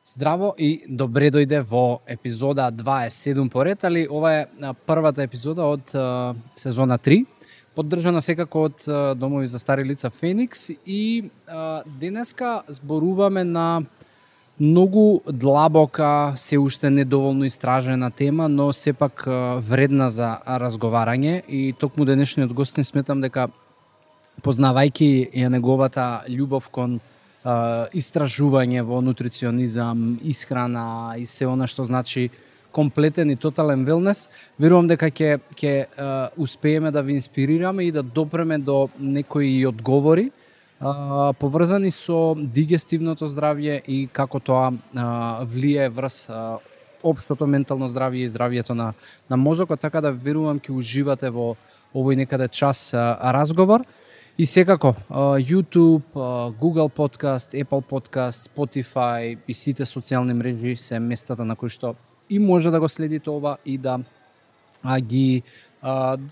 Здраво и добре дојде во епизода 27 поред, али ова е првата епизода од сезона 3, поддржана секако од Домови за стари лица Феникс и денеска зборуваме на многу длабока, се уште недоволно истражена тема, но сепак вредна за разговарање и токму денешниот гостин сметам дека познавајќи ја неговата љубов кон истражување во нутриционизам, исхрана и се она што значи комплетен и тотален велнес, верувам дека ќе успееме да ви инспирираме и да допреме до некои одговори поврзани со дигестивното здравје и како тоа влие врз општото ментално здравје и здравјето на мозокот, така да верувам ќе уживате во овој некаде час разговор. И секако, YouTube, Google Podcast, Apple Podcast, Spotify и сите социјални мрежи се местата на кои што и може да го следите ова и да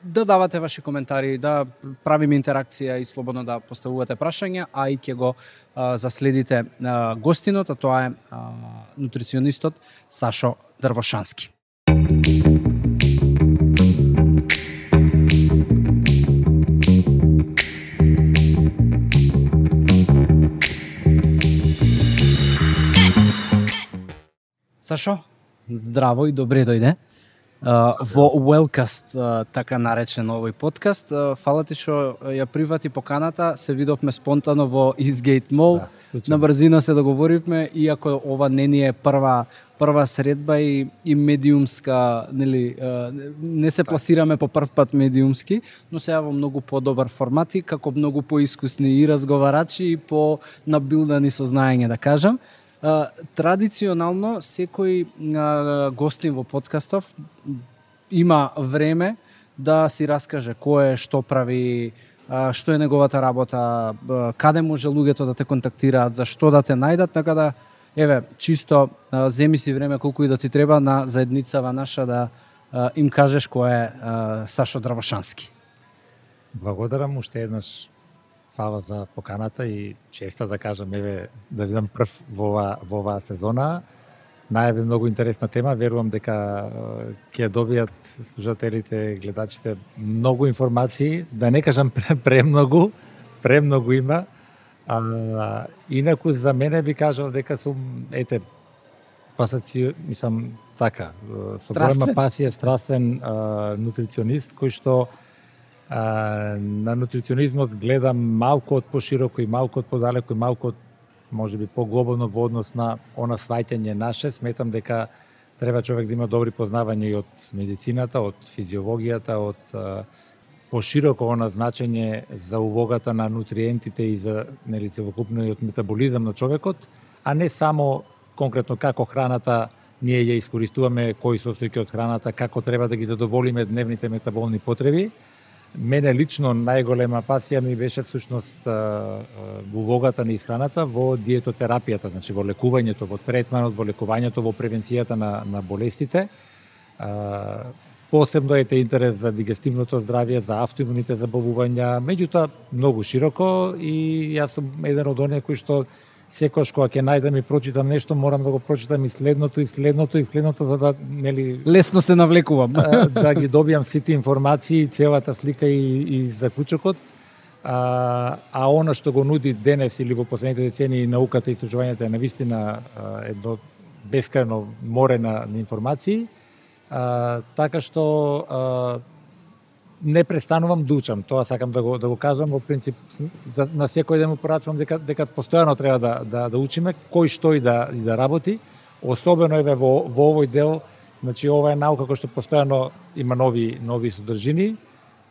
давате ваши коментари, да правиме интеракција и слободно да поставувате прашања, а и ќе го заследите гостинот, а тоа е нутриционистот Сашо Дрвошански. Сашо, здраво и добре дојде во Wellcast, така наречен овој подкаст. Фала ти што ја прифати поканата, се видовме спонтано во Eastgate Mall, на брзина се договоривме, иако ова не ни е прва средба и медиумска, нели, не се пласираме по прв пат медиумски, но се во многу подобар формат и како многу поискусни и разговарачи и по набилдани со знаење, да кажам. Традиционално секој гостин во подкастов има време да си раскаже кој е, што прави, што е неговата работа, каде може луѓето да те контактираат, за што да те најдат, така да еве чисто земи си време колку и да ти треба на заедницава наша да им кажеш кој е Сашо Дрвошански. Благодарам уште еднаш. Фала за поканата и честа да кажам, еве, да видам прв во оваа сезона. Најави многу интересна тема, верувам дека ќе добијат слушателите, гледачите многу информации, да не кажам премногу има. Инаку за мене би кажал дека сум, мислам така, со голема пасија, страствен нутриционист кој што на нутриционизмот гледам малку од пошироко и малку од подалеку и малку од можеби поглобално во однос на она сваќање наше. Сметам дека треба човек да има добри познавања и од медицината, од физиологијата, од пошироко она значење за улогата на нутриентите и за нели целокупно и од метаболизам на човекот, а не само конкретно како храната ние ја искористуваме, кои состојки од храната, како треба да ги задоволиме дневните метаболни потреби. Мене лично најголема пасија ми беше всушност улогата на исхраната во диетотерапијата, значи во лекувањето, во третманот, во лекувањето, во превенцијата на болестите. Посебно е интерес за дигестивното здравје, за автоимуните заболувања, меѓутоа многу широко и јас сум еден од оние кои што секогаш кога ќе најдам и прочитам нешто, морам да го прочитам и следното, за да нели лесно се навлекувам. Да ги добијам сите информации, целата слика и заклучокот. А она што го нуди денес или во последните децении науката и истражувањето е навистина едно бескрајно море на информации. Така што не престанувам да учам, тоа сакам да го кажам, во принцип на секој ден му порачувам дека постојано треба да учиме кој што и да работи, особено еве во овој дел, значи ова е наука која што постојано има нови содржини,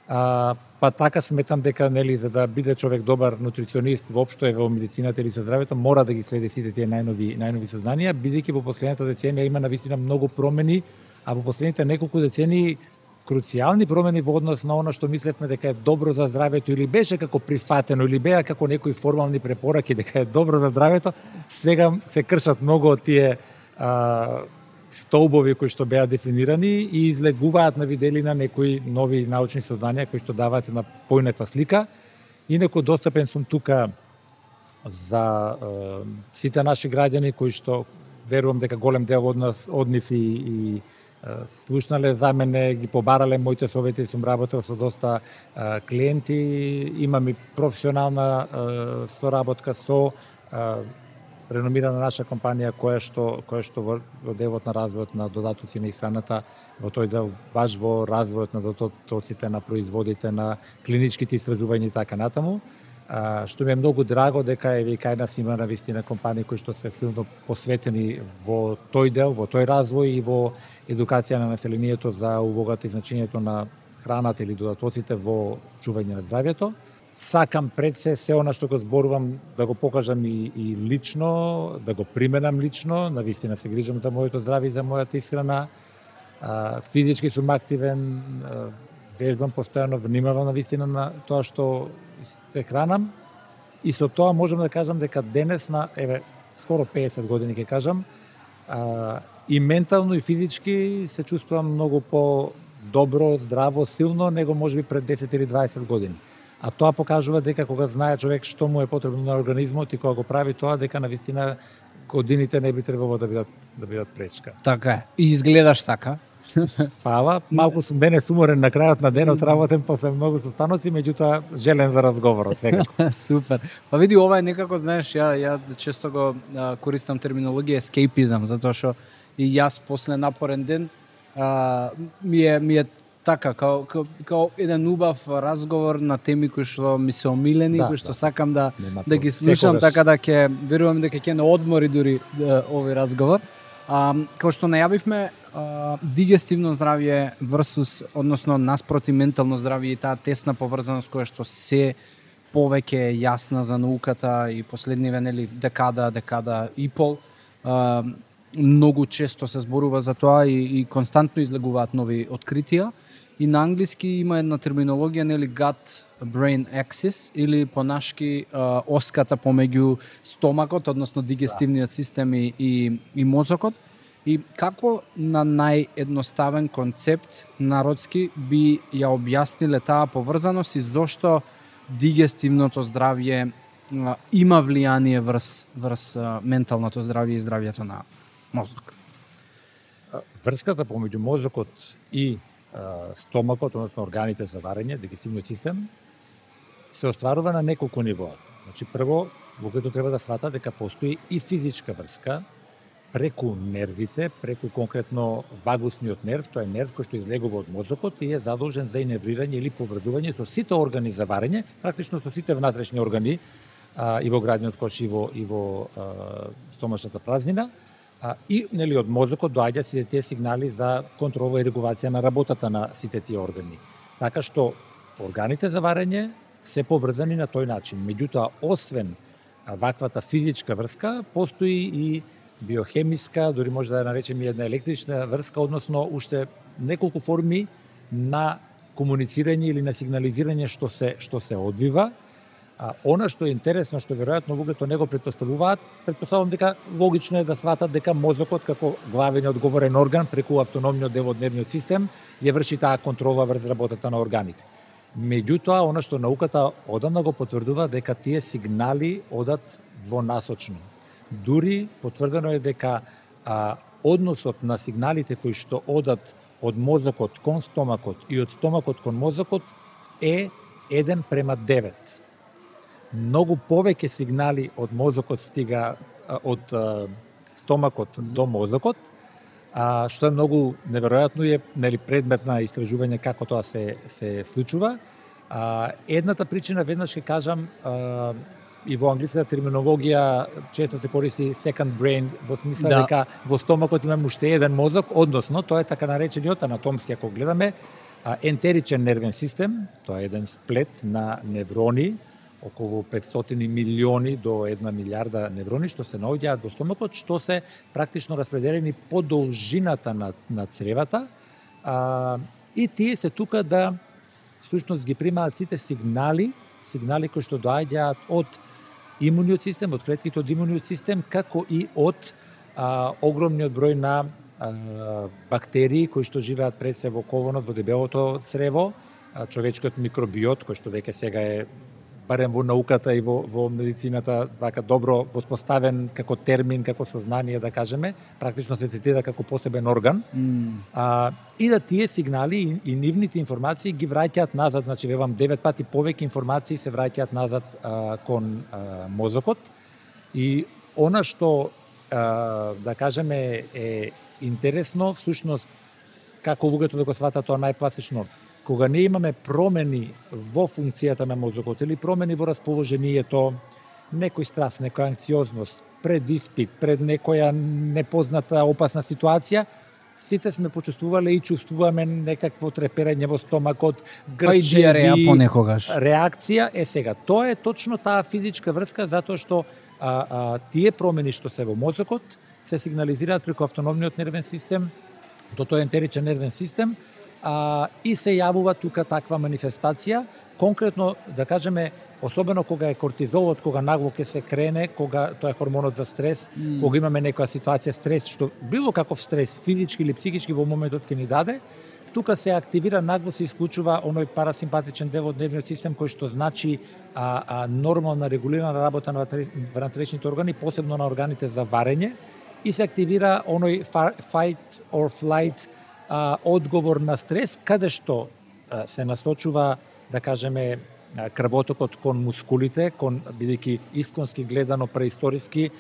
па така сметам дека нели за да биде човек добар нутриционист воопшто во медицината или со здравјето мора да ги следи сите тие најнови сознанија, бидејќи во последната деценија има навистина многу промени, а во последните неколку децении круцијални промени во однос на она што мислевме дека е добро за здравјето или беше како прифатено или беа како некои формални препораки дека е добро за здравјето, сега се кршат многу од тие столбови кои што беа дефинирани и излегуваат на виделина некои нови научни сознанија кои што даваат една поинаква слика. Инаку достапен сум тука за сите наши граѓани кои што верувам дека голем дел од нив и слушнале за мене, ги побарале моите совети, сум работел со доста клиенти, имам и професионална соработка со реномирана наша компанија која што во делот на развојот на додатоци на исхраната, во тој дел баш во развојот на додатоците, на производите, на клиничките истражувања и така натаму. Што ми е многу драго дека и кај нас има навистина компании кои што се силно посветени во тој дел, во тој развој и во едукација на населението за улогата и значењето на храната или додатоците во чување на здравјето. Сакам пред се она што го зборувам да го покажам и лично, да го применам лично, навистина се грижам за моето здравје и за мојата исхрана. Физички сум активен, вежбам постојано, внимавам навистина на тоа што се хранам и со тоа можам да кажам дека денес на скоро 50 години ќе кажам, и ментално и физички се чувствувам многу по-добро, здраво, силно него можеби пред 10 или 20 години. А тоа покажува дека кога знае човек што му е потребно на организмот и кога го прави тоа, дека навистина годините не би требало да бидат пречка. Така е. И изгледаш така. Фала, малку сум денес уморен на крајот на денот, работен после многу состаноци, меѓутоа желен за разговорот секако. Супер. Па види, ова е некако, знаеш, ја често го користам терминологија escapism, затоа што и јас после напорен ден ми е така, као еден убав разговор на теми кои што ми се омилени, кои што сакам да ги слушам, така да ќе верувам дека ќе не одмори дури овој разговор. Како што најавивме, дигестивно здравје versus, односно наспроти ментално здравје и таа тесна поврзаност која што се повеќе е јасна за науката и последниве декада и пол, многу често се зборува за тоа и константно излегуваат нови откритија. И на англиски има една терминологија, gut-brain axis, или понашки оската помеѓу стомакот, односно дигестивниот систем и мозокот. И како на наједноставен концепт народски би ја објасниле таа поврзаност и зошто дигестивното здравје има влијание врз менталното здравје и здравјето на мозок? Врската помеѓу мозокот и стомакот, односно органите за варење, дигестивниот систем, се остварува на неколку нивоа. Значи, прво, луѓето треба да сватат дека постои и физичка врска преку нервите, преку конкретно вагусниот нерв, тоа е нерв кој што излегува од мозокот и е задолжен за иневрирање или поврзување со сите органи за варење, практично со сите внатрешни органи и во градниот кош и во стомашната празнина. И од мозокот доаѓаат сите тие сигнали за контрола и регулација на работата на сите тие органи. Така што органите за варење се поврзани на тој начин. Меѓутоа, освен ваквата физичка врска, постои и биохемиска, дори може да ја наречеме една електрична врска, односно уште неколку форми на комуницирање или на сигнализирање што се одвива. Она што е интересно, што веројатно луѓето не го претпоставувам дека логично е да сватат дека мозокот како главен и одговорен орган преку автономниот дел од нервниот систем ја врши таа контрола врз работата на органите. Меѓутоа, она што науката одамна го потврдува дека тие сигнали одат двонасочно. Дури потврдено е дека односот на сигналите кои што одат од мозокот кон стомакот и од стомакот кон мозокот е 1:9. Многу повеќе сигнали од мозокот стига од стомакот до мозокот, што е многу неверојатно и е предмет на истражување како тоа се случува. Едната причина, веднаш ќе кажам, и во англиската терминологија често се користи second brain, во смисла дека во стомакот имаме уште еден мозок, односно тоа е така наречениот анатомски, ако гледаме, ентеричен нервен систем, тоа е еден сплет на неврони, околу 500 милиони до 1 милиарда неврони што се наоѓаат во стомакот, што се практично распределени по должината на цревата, и тие се тука да всушност ги примаат сите сигнали кои што доаѓаат од имуниот систем, од клетките од имуниот систем, како и од огромниот број на бактерии кои што живеат пред се во колонот, во дебелото црево, човечкиот микробиот, кој што веќе сега е барем во науката и во медицината, вака добро воспоставен како термин, како сознание, да кажеме, практично се цитира како посебен орган. И да тие сигнали и нивните информации ги враќаат назад, значи вевам 9 пати повеќе информации се враќаат назад кон мозокот. И она што да кажеме е интересно, всушност како луѓето да го сватат тоа најпласично, кога не имаме промени во функцијата на мозокот или промени во расположението, некој страв, некоја анксиозност, пред испит, пред некоја непозната опасна ситуација, сите сме почувствувале и чувствуваме некакво треперење во стомакот, грчеви, понекогаш. Реакција е сега. Тоа е точно таа физичка врска, затоа што тие промени што се во мозокот се сигнализираат преку автономниот нервен систем, до тој ентеричен нервен систем, и се јавува тука таква манифестација, конкретно, да кажеме, особено кога е кортизолот, кога нагло ќе се крене, кога тоа е хормонот за стрес, кога имаме некоја ситуација стрес, што било каков стрес, физички или психички во моментот ќе ни даде, тука се активира, нагло се исклучува оној парасимпатичен дел од нервниот систем кој што значи нормална регулирана работа на внатрешните органи, посебно на органите за варење, и се активира оној fight or flight одговор на стрес, каде што се насочува, да кажеме, крвотокот кон мускулите, бидејќи исконски гледано преисториски,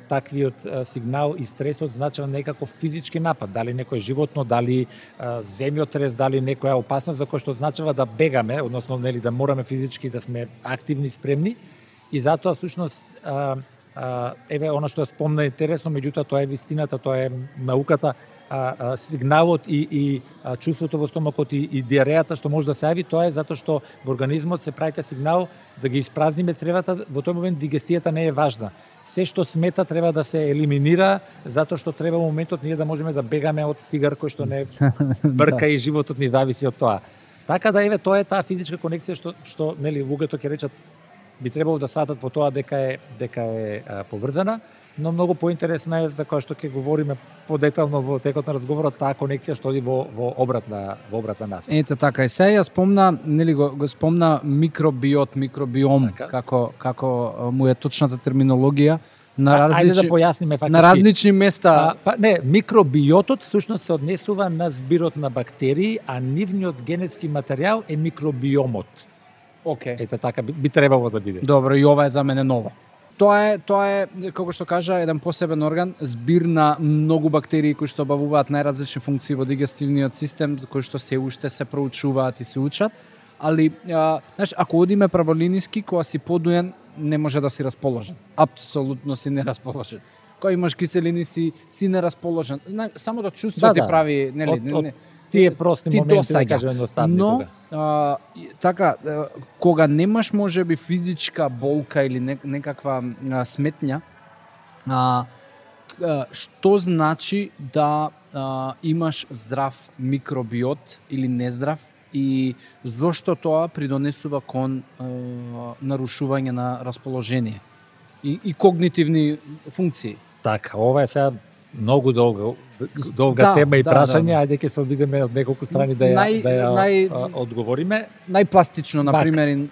таквиот сигнал и стресот значи некако физички напад, дали некој животно, дали земјотрес, дали некоја опасност за која што означава да бегаме, односно нели да мораме физички да сме активни, спремни, и затоа всушност еве она што спомна интересно, меѓутоа тоа е вистината, тоа е науката, сигналот и чувството во стомакот и диарејата што може да се јави, тоа е затоа што во организмот се праќа сигнал да ги испразниме цревата, во тој момент дигестијата не е важна. Се што смета треба да се елиминира, затоа што треба во моментот ние да можеме да бегаме од тигар кој што не брка и животот ни зависи од тоа. Така да еве тоа е таа физичка конекција што нели луѓето ќе речат би требало да сватат по тоа дека е поврзана, но многу поинтересна е за која што ќе говориме подетално во текот на разговорот, таа конекција што оди во обратна насока. Ете така, и сега ја спомна, нели го спомна микробиом, така, како му е точната терминологија на ајде да појасниме фактички. На различни места. Микробиотот всушност се однесува на збирот на бактерии, а нивниот генетски материјал е микробиомот. Океј. Ете така би требало да биде. Добро, и ова е за мене ново. Тоа е, како што кажа, еден посебен орган, збир на многу бактерии кои што обавуваат најразлични функции во дигестивниот систем, кои што се уште се проучуваат и се учат, али знаеш, ако одиме праволиниски, кога си подуен, не може да си расположен. Апсолутно си нерасположен. Кога имаш киселини си нерасположен. Самото чувство ти прави, нели, тие прости моменти, да кажеме, едноставни. Но, така, кога немаш можеби физичка болка или некаква сметња, што значи да имаш здрав микробиот или нездрав и зошто тоа придонесува кон нарушување на расположение и когнитивни функции? Така, ова е сега многу долга тема и прашање, ајде ќе се обидеме од неколку страни да ја одговориме. Најпластично, например.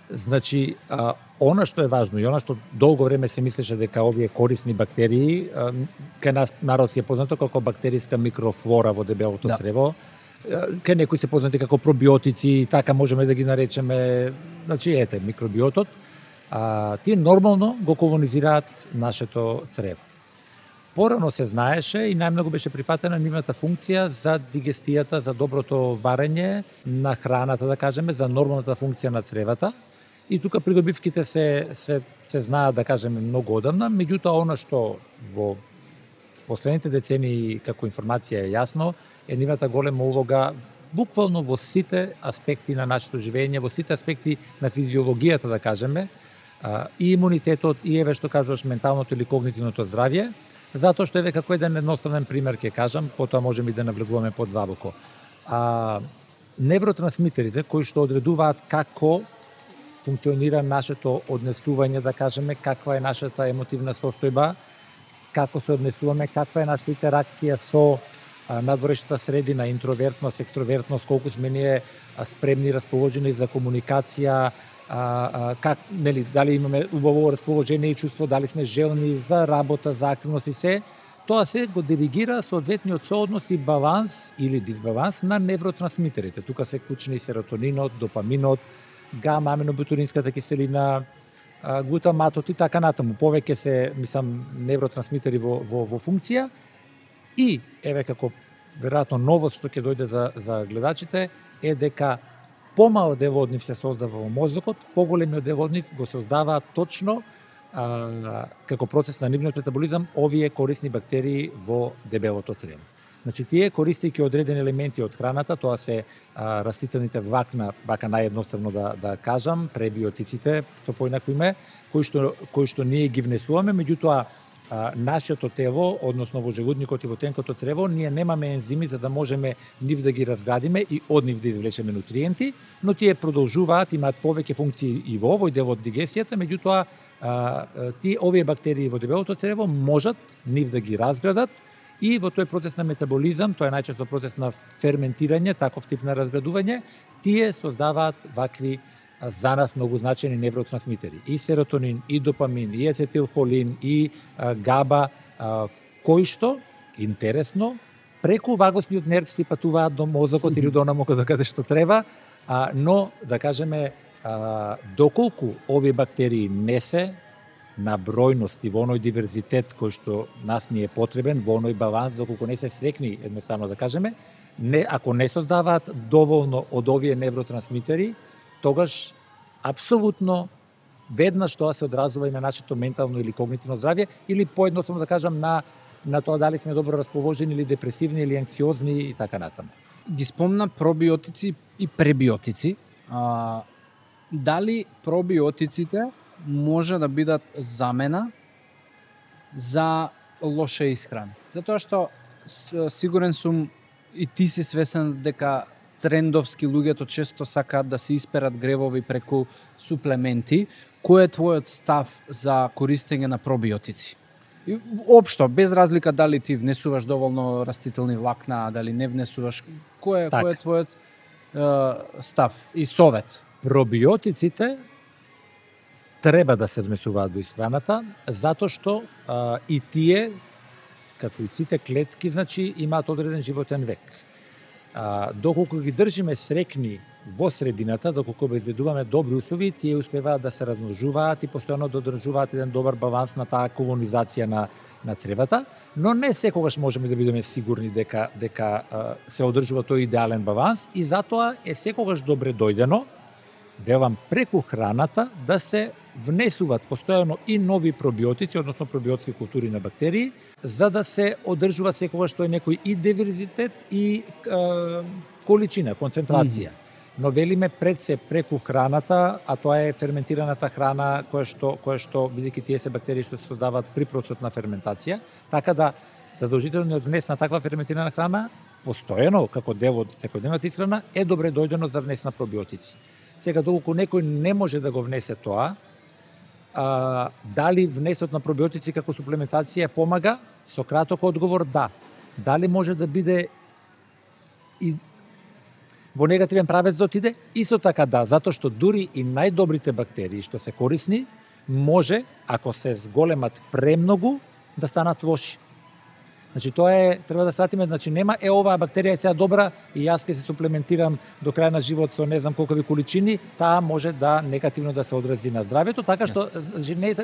Значи, она што е важно и она што долго време се мислеше дека овие корисни бактерии, кај нас народски е познато како бактериска микрофлора во дебелото црево, кај некои се познати како пробиотици, така можеме да ги наречеме, значи ете, микробиотот, тие нормално го колонизираат нашето црево. Порано се знаеше и најмногу беше прифатена нивната функција за дигестијата, за доброто варење на храната, да кажеме, за нормалната функција на цревата. И тука придобивките се знаат, да кажеме, многу одамна, меѓутоа она што во последните децении како информација е јасно, е нивната голема улога буквално во сите аспекти на нашето живење, во сите аспекти на физиологијата, да кажеме, и имунитетот, и еве што кажуваш менталното или когнитивното здравје, затоа што еве како еден едноставен пример ќе кажам, потоа можеме и да навлегуваме подвабоко. Невротрансмитерите кои што одредуваат како функционира нашето однесување, да кажеме, каква е нашата емотивна состојба, како се однесуваме, каква е нашата интеракција со надворешната средина, интровертност, екстровертност, колку сме ние спремни, расположени за комуникација, как, нели, дали имаме убаво расположение и чувство, дали сме желни за работа, за активност и се, тоа се го диригира соодветниот сооднос и баланс или дисбаланс на невротрансмитерите. Тука се клучни серотонинот, допаминот, гама аминобутиринската киселина, глутаматот и така натаму. Повеќе се, мислам, невротрансмитери во функција и еве како веројатно новост што ќе дојде за гледачите е дека помал дел од нив се создава во мозокот, поголемиот дел од нив го создава точно како процес на нивниот метаболизам овие корисни бактерии во дебелото црево. Значи, тие користејќи одредени елементи од храната, тоа се растителните влакна, вака наједноставно да кажам, пребиотиците, со поинако име, кои што ние ги внесуваме, меѓутоа нашето тело, односно во желудникот и во тенкото црево, ние немаме ензими за да можеме нив да ги разградиме и од нив да извлечеме нутриенти, но тие продолжуваат, имаат повеќе функции и во овој дел од дигесијата, меѓутоа овие бактерии во дебелото црево можат нив да ги разградат и во тој процес на метаболизам, тоа е најчесто процес на ферментирање, таков тип на разградување, тие создаваат вакви за нас многу значени невротрансмитери. И серотонин, и допамин, и ацетилхолин, и габа, кои што, интересно, преку вагосниот нерв си патуваат до мозокот или до онаму каде што треба, но, да кажеме, доколку овие бактерии не се на бројност и во оној диверзитет кој што нас ни е потребен, во оној баланс, доколку не се срекни, едноставно да кажеме, ако не создаваат доволно од овие невротрансмитери, тогаш апсолутно веднаш тоа се одразува и на нашето ментално или когнитивно здравје, или поедноставно да кажам на тоа дали сме добро расположени или депресивни или анксиозни и така натаму. Ги спомна пробиотици и пребиотици. Дали пробиотиците може да бидат замена за лоша исхрана? Затоа што сигурен сум и ти си свесен дека трендовски луѓето често сакаат да се исперат гревови преку суплементи. Кој е твојот став за користење на пробиотици? И општо, без разлика дали ти внесуваш доволно растителни влакна, дали не внесуваш, кој е твојот став и совет? Пробиотиците треба да се внесуваат во исхраната, затоа што и тие, како и сите клетки, значи, имаат одреден животен век. Доколку ги држиме срекни во средината, доколку обезбедуваме добри услови, тие успеваат да се размножуваат и постојано да одржуваат еден добар баланс на таа колонизација на цревата, но не секогаш можеме да бидеме сигурни дека се одржува тој идеален баланс и затоа е секогаш добре дојдено, велам, преку храната да се внесуваат постојано и нови пробиотици, односно пробиотски култури на бактерии, за да се одржува секогаш тој некој и диверзитет и количина, концентрација. Но велиме пред се преку храната, а тоа е ферментираната храна која што бидејќи тие се бактерии што се создаваат при процесот на ферментација, така да задолжителниот внес на таква ферментирана храна постојано како дел од секојдневната исхрана е добре дојдено за внес на пробиотици. Сега, доколку некој не може да го внесе тоа, дали внесот на пробиотици како суплементација помага? Со краток одговор, да. Дали може да биде и во негативен правец да отиде? Исто така да, затоа што дури и најдобрите бактерии што се корисни, може, ако се зголемат премногу, да станат лоши. Значи, тоа треба да сватиме, значи нема оваа бактерија е сега добра и јас ќе се суплементирам до крај на живот со не знам колкови количини, таа може да негативно да се одрази на здравјето, така што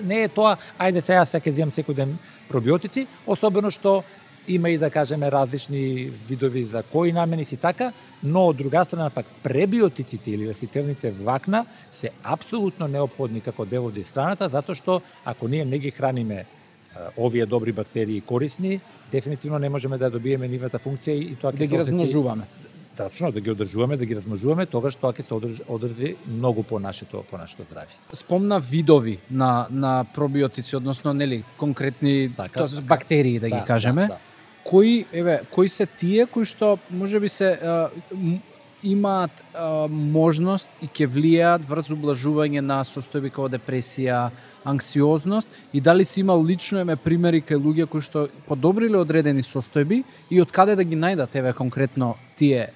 не е тоа, ајде сега ќе земам секој ден пробиотици, особено што има и да кажеме различни видови за кои намени си така, но од друга страна пак пребиотиците или растителните влакна се апсолутно неопходни како дел од исхраната, затоа што ако ние не ги храниме овие добри бактерии корисни, дефинитивно не можеме да добиеме нивната функција и тоа ќе да ги размножуваме. Точно, да ги одржуваме, да ги размножуваме, тогаш тоа ќе се одржи многу по нашето здравје. Спомна видови на пробиотици, односно нели конкретни бактерии да ги кажеме. Да. Кои се тие кои што можеби се имаат можност и ќе влијаат врз ублажување на состојби како депресија, анксиозност и дали си имал лично примери кај луѓе кои што подобриле одредени состојби и од каде да ги најдат конкретно тие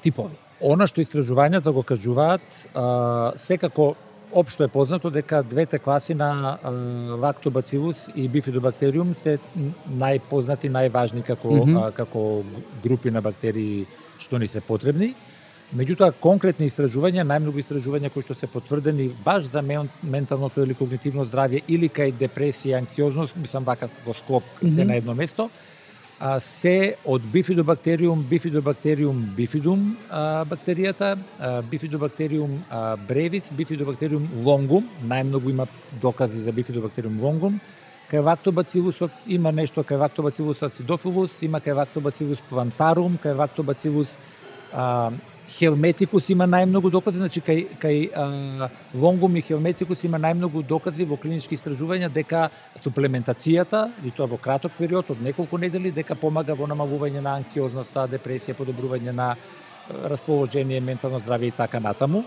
типови? Она што истражувањата го кажуваат, секако општо е познато дека двете класи на лактобацилус и бифидобактериум се најпознати, најважни како групи на бактерии што ни се потребни. Меѓутоа, конкретни истражувања, најмногу истражувања кои што се потврдени баш за менталното или когнитивно здравје или кај депресија, анксиозност, мислам вака во склоп се на едно место, се од бифидобактериум бифидум бактеријата, бифидобактериум бревис, бифидобактериум лонгум, најмногу има докази за бифидобактериум лонгум. Кај лактобацилусот има нешто, кај лактобацилус acidophilus, има кај лактобацилус plantarum, кај лактобацилус Helmeticus има најмногу докази, значи кај лонгум и Helmeticus има најмногу докази во клинички истражувања дека суплементацијата, и тоа во краток период од неколку недели, дека помага во намалување на анксиозноста, депресија, подобрување на расположение, ментално здравје и така натаму.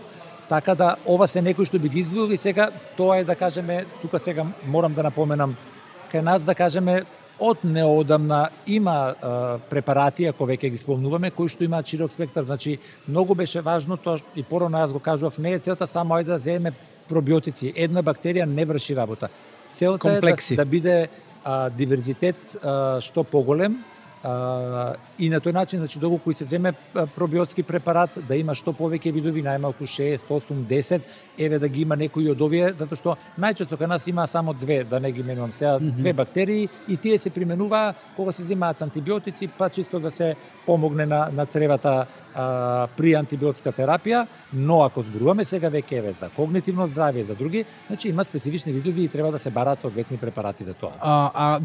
Така да ова се некои што би ги извоил и сега тоа е да кажеме, тука сега морам да напоменам, кај нас да кажеме од неодамна има препарати, ако веќе ги спомнуваме, кои што имаат широк спектар, значи многу беше важно тоа и порано јас го кажував, не е целта само ајде да земеме пробиотици. Една бактерија не врши работа. Целта е да биде диверзитет што поголем, и на тој начин, значи, доколку се земе пробиотски препарат, да има што повеќе видови, најмалку 6, 8, 10, еве да ги има некои од овие, затоа што најчесто кај нас има само две, да не ги менувам сега, две бактерии, и тие се применуваа кога се земаат антибиотици, па чисто да се помогне на цревата при антибиотска терапија, но ако зборуваме сега веќе еве за когнитивно здравје, за други, значи има специфични видови и треба да се бараат соодветни препарати за тоа.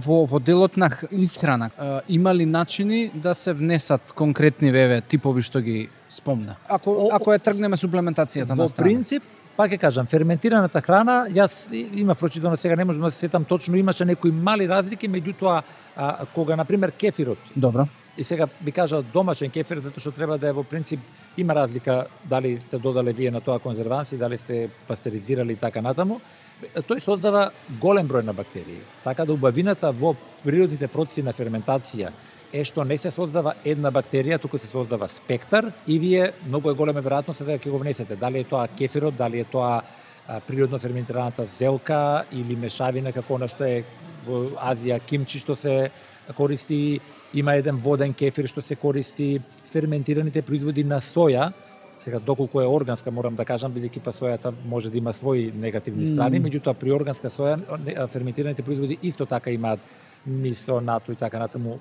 Во делот на исхрана има ли начини да се внесат конкретни типови што ги спомна? Ако ја тргнеме суплементацијата на страна. Во принцип, пак ќе кажам, ферментираната храна, јас има прочитано, сега не можам да се сетам точно, имаше некои мали разлики, меѓутоа кога на пример кефирот. Добро. И сега би кажал домашен кефир, затоа што треба да е во принцип, има разлика дали сте додале вие на тоа конзерванси, дали сте пастеризирали и така натаму. Тој создава голем број на бактерии. Така да убавината во природните процеси на ферментација е што не се создава една бактерија, туку се создава спектар и вие многу е голема веројатност дека ќе го внесете. Дали е тоа кефирот, дали е тоа природно ферментираната зелка или мешавина како она што е во Азија кимчи што се користи. Има еден воден кефир што се користи, ферментираните производи на соја. Сега доколку е органска, морам да кажам, бидејќи па сојата може да има своји негативни страни, меѓутоа при органска соја ферментираните производи исто така имаат мисо, нато и така натаму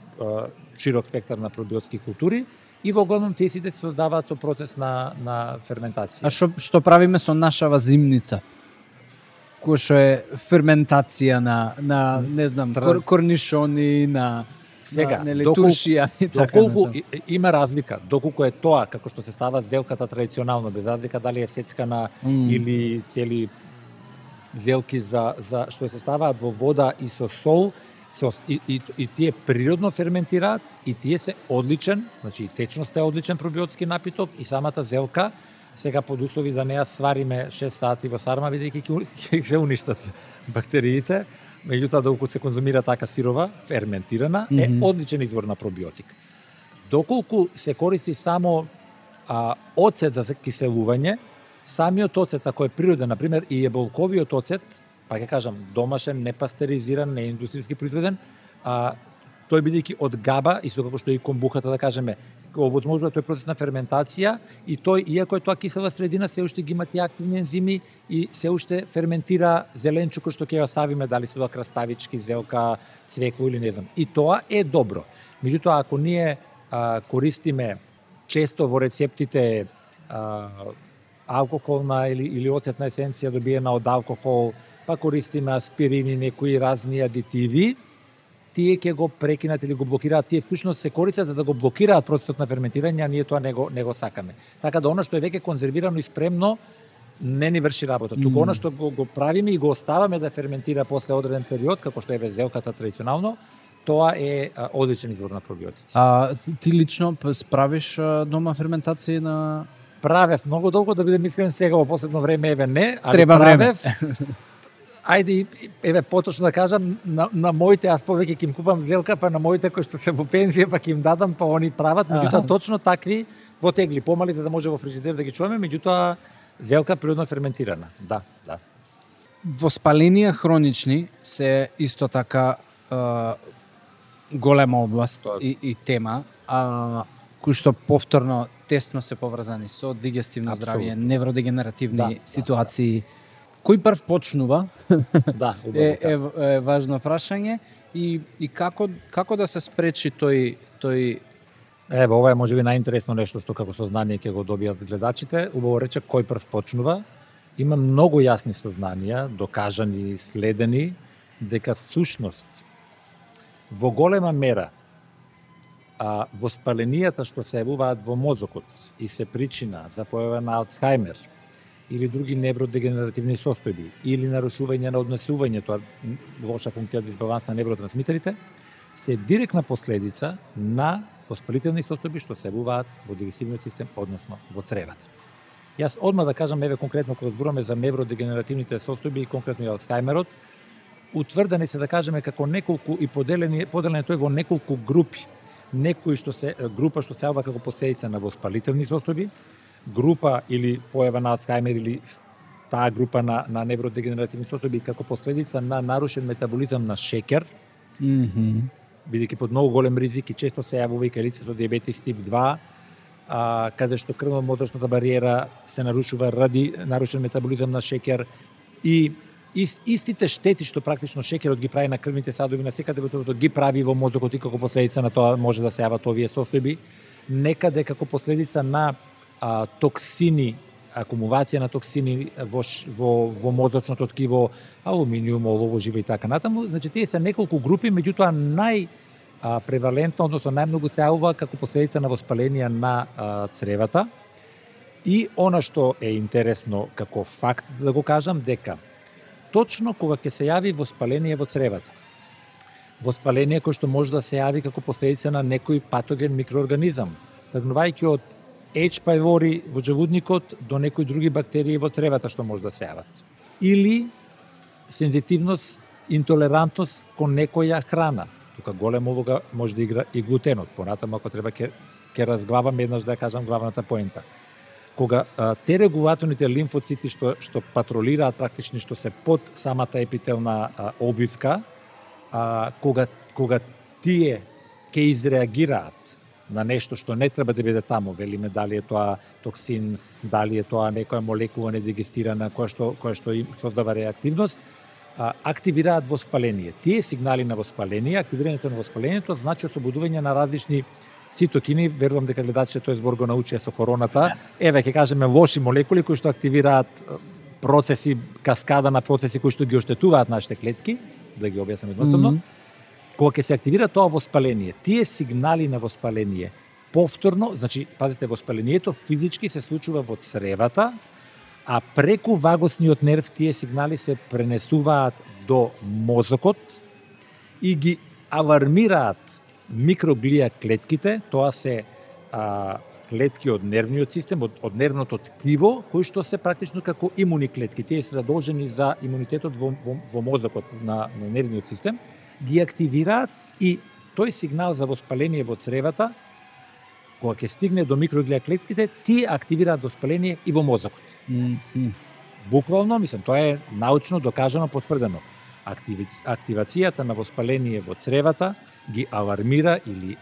широк спектар на пробиотски култури и во главном тие сите се создаваат со процес на ферментација. А што правиме со нашава зимница? Кој што е ферментација на не знам, корнишони, на сега, туршија и така. Доколку има разлика, доколку е тоа како што се става зелката традиционално, без разлика дали е сецкана или цели зелки за што се ставаат во вода и со сол, и тие природно ферментираат и тие се одличен, значи и течноста е одличен пробиотски напиток и самата зелка, сега под услови да не ја свариме 6 сати во сарма, бидејќи ќе се уништат бактериите. Меѓутоа, доколку се конзумира така сирова, ферментирана, е одличен извор на пробиотик. Доколку се користи само оцет за киселување, самиот оцет, ако е природен, например, и еболковиот оцет, па ќе кажам, домашен, непастеризиран, не индустријски произведен, тој бидејќи од габа, исто како што и комбухата, да кажеме, овозможува тој процес на ферментација и тој, иако е тоа кисела средина, се уште ги има тие активни ензими и се уште ферментира зеленчуко што ќе ја ставиме, дали се тоа краставички, зелка, цвекло или не знам. И тоа е добро. Меѓутоа, ако ние користиме често во рецептите алкохолна или оцетна есенција добиена од алкохол, па користиме аспирини, некои разни адитиви, тие ќе го прекинат или го блокираат, тие всушност се користат да го блокираат процесот на ферментирање, а ние тоа не го сакаме. Така да она што е веќе конзервирано и спремно не ни врши работа. Туку она што го правиме и го оставаме да ферментира после одреден период, како што е зелката традиционално, тоа е одличен извор на пробиотици. Ти лично правиш дома ферментација на... Правев многу долго, да бидем искрен, сега во последно време еве не, али треба правев. Време. Ајде, еве поточно да кажам, на моите, аз повеќе ќе им купам зелка, па на моите кои што се во пензија, па ќе им дадам, па они прават, меѓутоа точно такви во тегли помали за да може во фрижидер да ги чуваме, меѓутоа зелка природно ферментирана. Да. Воспаленија хронични се исто така голема област и тема, кои што повторно тесно се поврзани со дигестивно здравје, невродегенеративни ситуации. Кој прв почнува? е важно прашање и како да се спречи тој Ево, ова е можеби најинтересно нешто што како сознание ќе го добијат гледачите. Убаво рече кој прв почнува. Има многу јасни сознанија, докажани, следени, дека всушност во голема мера воспаленијата што се јавуваат во мозокот и се причина за појава на Алцхаймер или други невродегенеративни состојби или нарушување на однесувањето, лоша функција дисбаланс на невротрансмитерите, се директна последица на воспалителни состојби што се јавуваат во дигестивниот систем, односно во цревата. Јас одма да кажам, еве конкретно кога зборуваме за невродегенеративните состојби и конкретно и Алцхаймерот, утврдени се да кажеме како неколку и поделен тој во неколку групи. Некои што се група што се јавува како последица на воспалителни состојби, група или појава на Алцхаймер или таа група на невродегенеративни состојби како последица на нарушен метаболизам на шеќер, бидејќи под многу голем ризик и често се јавува и кај лицето диабетис тип 2, каде што крвно-мозочната бариера се нарушува ради нарушен метаболизам на шеќер и истите штети што практично шеќерот ги прави на крвните садови на секаде во телото ги прави во мозокот и како последица на тоа може да се јават овие состојби, некаде како последица на токсини, акумулација на токсини во мозочното ткиво, алуминиум, олово, живо и така натаму. Значи тие се неколку групи, меѓутоа превалентно, односно најмногу се јавува како последица на воспаленија на цревата. И она што е интересно како факт да го кажам, дека точно кога ќе се јави воспаление во цревата, воспаление кој што може да се јави како последица на некој патоген микроорганизам, тргнувајќи од H. pylori во жевудникот до некои други бактерии во цревата што може да се јават. Или сензитивност, интолерантност кон некоја храна. Тука голема улога може да игра и глутенот. Понатаму ако треба ќе разглавам еднаш да ја кажам главната поента. Кога те регулаторните лимфоцити што патролираат практично што се под самата епителна обвивка, кога тие ќе изреагираат на нешто што не треба да биде таму, велиме дали е тоа токсин, дали е тоа некоја молекула недигестирана која што им создава реактивност, активираат воспаление. Тие сигнали на воспаление, активирањето на воспалението значи ослободување на различни цитокини, верувам дека гледачите тој збор го научија со короната. Еве ќе кажеме лоши молекули кои што активираат процеси, каскада на процеси кои што ги оштетуваат нашите клетки, да ги објаснам едноставно. Кога ќе се активира тоа воспаление, тие сигнали на воспаление повторно, значи пазите, воспалението физички се случува во цревата, а преку вагосниот нерв тие сигнали се пренесуваат до мозокот и ги алармираат микроглија клетките, тоа се клетки од нервниот систем, од нервното ткиво, кои што се практично како имуни клетки. Тие се задолжени за имунитетот во мозокот на нервниот систем, ги активираат и тој сигнал за воспаление во цревата, кога ќе стигне до микроглија клетките, тие активираат воспаление и во мозокот. Буквално, мислам, тоа е научно докажано, потврдено. Активацијата на воспаление во цревата ги алармира или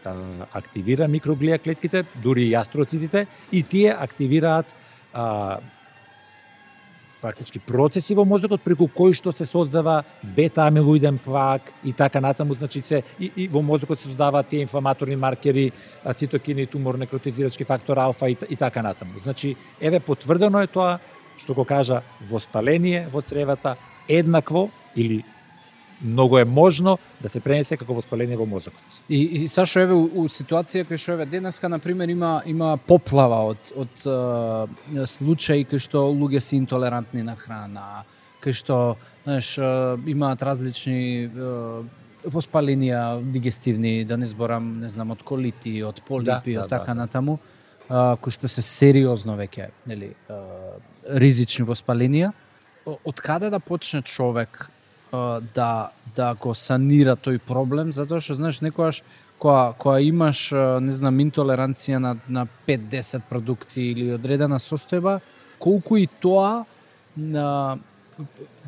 активира микроглија клетките, дури и астроцитите, и тие активираат практички процеси во мозокот преку кои што се создава бета-амилоиден плак и така натаму, значи и во мозокот се создаваат тие инфламаторни маркери, цитокини, тумор, некротизирачки фактор алфа и така натаму. Значи, еве потврдено е тоа што го кажа воспаление во цревата еднакво или многу е можно да се пренесе како воспаление во мозокот. И Сашо, еве у ситуација кај што еве денеска на пример има поплава од случаи кај што луѓе се интолерантни на храна, кај што, знаеш, имаат различни воспаленија дигестивни, да не зборам, не знам, од колити, од полипи, од така натаму, кои што се сериозно веќе, нели, ризични воспаленија. Од каде да почне човек да го санира тој проблем, затоа што, знаеш, некогаш која имаш, не знам, интолеранција на 5-10 продукти или одредена состојба, колку и тоа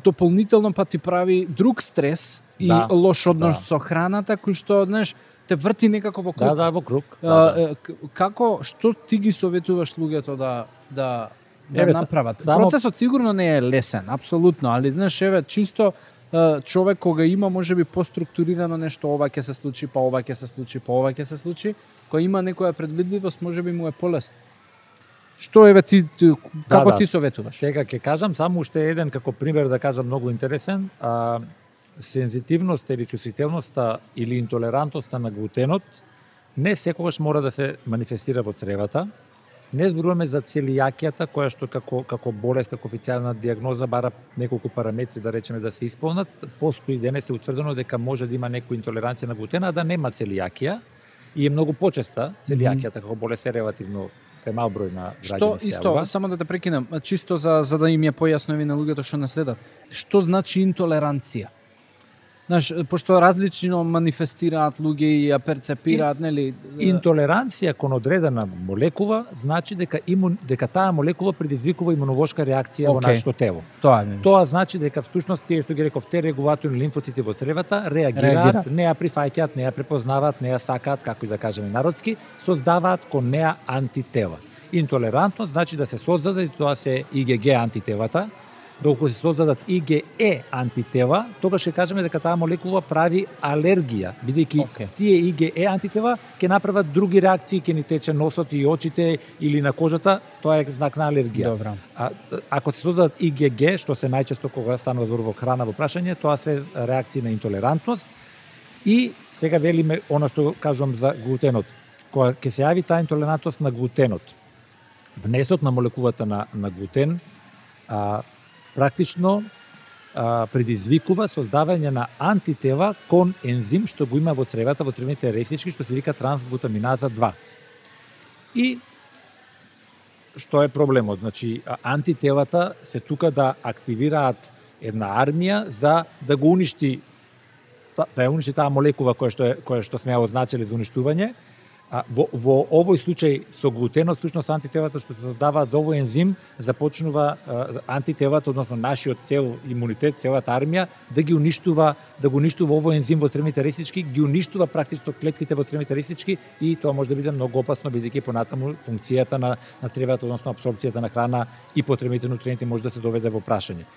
дополнително па ти прави друг стрес и лош однос со храната, кој што, знаеш, те врти некако во круг. во круг. Како, што ти ги советуваш луѓето да направат? Процесот сигурно не е лесен, апсолутно, али знаеш, еве, чисто човек кога има можеби поструктурирано нешто, ова ќе се случи, па ова ќе се случи, па ова ќе се случи, кој има некоја предвидливост, можеби му е полесно. Што еве ти како ти советуваш? Сега ќе кажам само уште еден како пример да кажам многу интересен, сензитивноста или чувствителноста или интолерантноста на глутенот не секогаш мора да се манифестира во цревата. Не зборуваме за целијакијата, која што како болест, како официјална дијагноза бара неколку параметри да речеме да се исполнат. Постои денес е утврдено дека може да има некоја интолеранција на глутена, а да нема целијакија и е многу почеста целијакијата како болест е релативно кај мал број на граѓани. Што исто, само да те прекинам, чисто за да им е појасно на луѓето што не следат. Што значи интолеранција? Знаеш, пошто различно манифестираат луѓе и ја перцепираат, нели? Интолеранција кон одредена молекула значи дека таа молекула предизвикува имунолошка реакција во нашето тело. Тоа значи дека всушност тие што ги реков те регулаторни лимфоцити во цревата реагираат, не ја прифаќаат, не ја препознаваат, не ја сакаат, како и да кажеме народски, создаваат кон неа антитела. Интолерантност значи да се создаде, и тоа се IgG антителата. Доколку се создадат IgE антитела, тогаш ќе кажеме дека таа молекула прави алергија, бидејќи тие IgE антитела ќе направат други реакции, ќе ни тече носот и очите или на кожата, тоа е знак на алергија. Ако се создадат IgG, што се најчесто кога станува збор во храна во прашање, тоа се реакции на интолерантност. И сега велиме она што кажувам за глутенот. Кога ќе се јави таа интолерантност на глутенот, внесот на молекулата на глутен практично предизвикува создавање на антитела кон ензим што го има во цревата, во цревните реснички, што се вика трансглутаминаза 2. И што е проблемот? Значи, антителата се тука да активираат една армија за да го уништи, да ја уништи таа молекула која што сме ја означили за уништување. Во овој случај со глутенот, всушност антителата што се создаваат за овој ензим, започнува антителата, односно нашиот цел имунитет, целата армија, да го уништува овој ензим во цревните реснички, ги уништува практично клетките во цревните реснички и тоа може да биде многу опасно, бидејќи понатаму функцијата на цревата, односно апсорбцијата на храна и потребните нутриенти може да се доведе во прашање.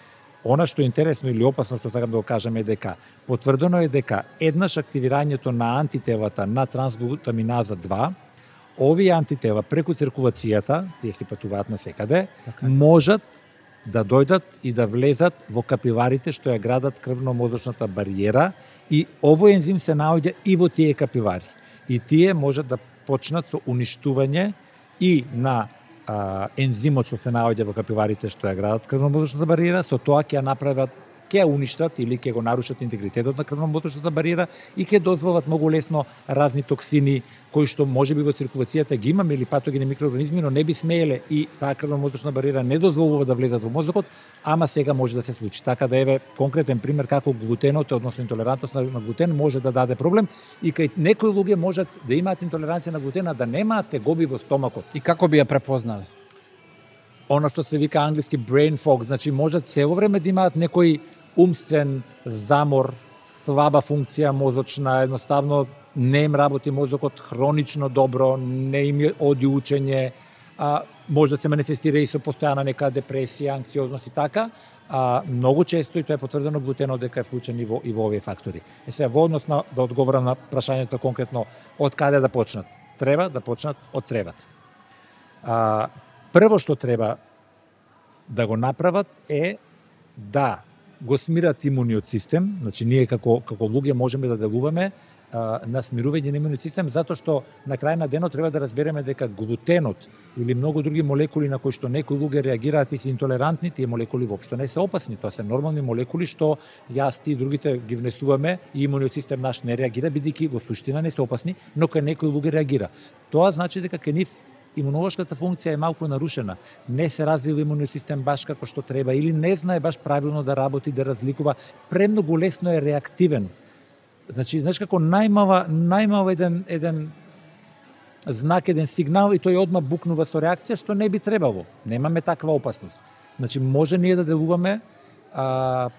Она што е интересно или опасно што сакам да го кажам е дека потврдено е дека еднаш активирањето на антителата на трансглутаминаза 2, овие антитела преку циркулацијата, тие се патуваат насекаде, можат да дојдат и да влезат во капиларите што ја градат крвно-мозочната бариера и овој ензим се наоѓа и во тие капилари. И тие можат да почнат со уништување и на ензимот што се наоѓа во капиларите што ја градат крвно-мозочната бариера, со тоа ќе ја направат, ќе ја уништат или ќе го нарушат интегритетот на крвно-мозочната бариера и ќе дозволат многу лесно разни токсини кои што можеби во циркулацијата ги имаме или патогени микроорганизми, но не би смееле и таа крвно-мозочна бариера не дозволува да влезат во мозокот, ама сега може да се случи. Така да еве конкретен пример како глутенот, односно интолерантност на глутен може да даде проблем и кај некои луѓе можат да имаат интолеранција на глутена, да немаат тегоби во стомакот. И како би ја препознале? Она што се вика англиски brain fog, значи можат цело време да имаат некој умствен замор, слаба функција мозочна, едноставно не им работи мозокот хронично добро, не им оди учење, може да се манифестира и со постојана нека депресија, анксиозност и така, многу често, и тоа е потврдено глутенот дека е вклучен и во овие фактори. Сега, во однос на, да одговорам на прашањето конкретно, од каде да почнат? Треба да почнат од цревата. Прво што треба да го направат е да го смират имуниот систем, значи ние како луѓе можеме да делуваме на смирување на имуниот систем, затоа што на крај на денот треба да разбереме дека глутенот или многу други молекули на кои што некои луѓе реагираат и се интолерантни, тие молекули воопшто не се опасни, тоа се нормални молекули што јас ти и другите ги внесуваме и имуниот систем наш не реагира, бидејќи во суштина не се опасни, но кај некои луѓе реагира. Тоа значи дека кај нив имунолошката функција е малку нарушена, не се развива имуниот систем баш како што треба или не знае баш правилно да работи, да разликува, премногу лесно е реактивен. Значи, знаеш како најмал еден знак, еден сигнал и тој одма букнува со реакција, што не би требало. Немаме таква опасност. Значи, може ние да делуваме,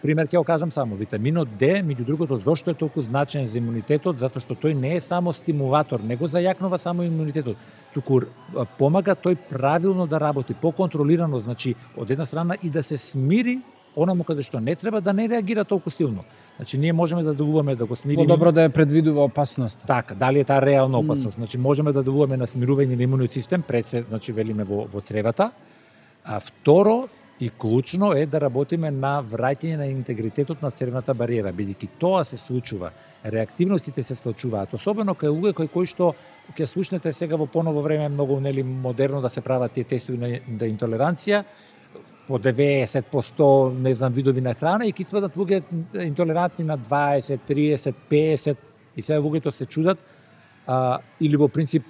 пример ќе го кажам само, витаминот Д, меѓу другото, зошто е толку значен за имунитетот, затоа што тој не е само стимулатор, не го зајакнува само имунитетот, туку помага тој правилно да работи, поконтролирано, значи, од една страна и да се смири онаму каде што не треба, да не реагира толку силно. Значи, ние можеме да делуваме да го смириме. Подобро да ја предвидува опасност. Така, дали е таа реална опасност. Значи, можеме да делуваме на смирување на имуниот систем, пред се, значи, велиме во цревата. А второ, и клучно е да работиме на враќање на интегритетот на цревната бариера, бидејќи тоа се случува. Реактивностите се случуваат, особено кај луѓе кои што ќе слушнете сега во поново време многу модерно да се прават тие тестови на интолеранција, по 90%, не знам, видови на храна и ќе сведат луѓе интолерантни на 20, 30, 50 и сега луѓето се чудат или во принцип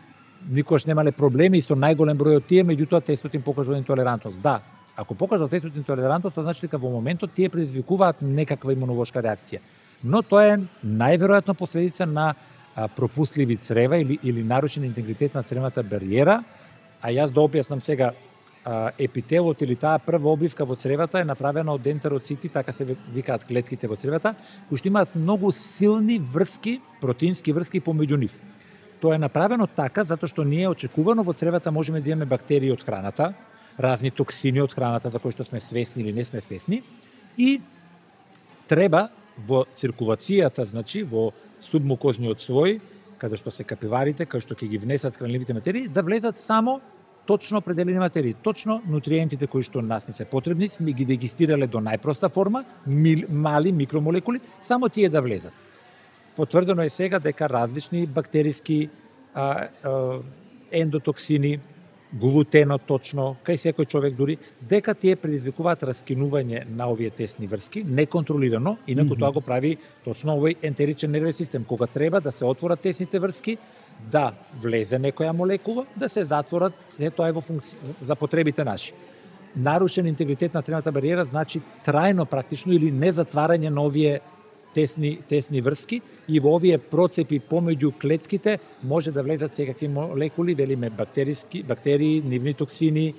никош немале проблеми и со најголем број од тие, меѓутоа тестот им покажува интолерантност. Да, ако покажа тестот интолерантност, тоа значи дека во моментот тие предизвикуваат некаква имунолошка реакција. Но тоа е најверојатно последица на пропусливи црева или нарушен интегритет на цревната бариера, а јас да објаснам сега, епителот или таа прва обвивка во цревата е направена од ентероцити, така се викаат клетките во цревата, кои што имаат многу силни врски, протеински врски помеѓу нив. Тоа е направено така затоа што ние очекувано во цревата можеме да имаме бактерии од храната, разни токсини од храната за кои што сме свесни или не сме свесни, и треба во циркулацијата, значи во субмукозниот слој, каде што се капиларите, каде што ќе ги внесат хранливите материи, да влезат само точно определени материи, точно нутриентите кои што нас не се потребни, сме ги дегистирале до најпроста форма, мали микромолекули, само тие да влезат. Потврдено е сега дека различни бактериски ендотоксини, глутенот точно, кај секој човек дури, дека тие предизвикуваат раскинување на овие тесни врски, неконтролирано, инаку тоа го прави точно овој ентеричен нервен систем, кога треба да се отворат тесните врски, да влезе некоја молекула, да се затворат, се тоа е во функција за потребите наши. Нарушен интегритет на цревната бариера значи трајно практично или незатварање на овие тесни врски и во овие процепи помеѓу клетките може да влезат секакви молекули, велиме бактерии, нивни токсини,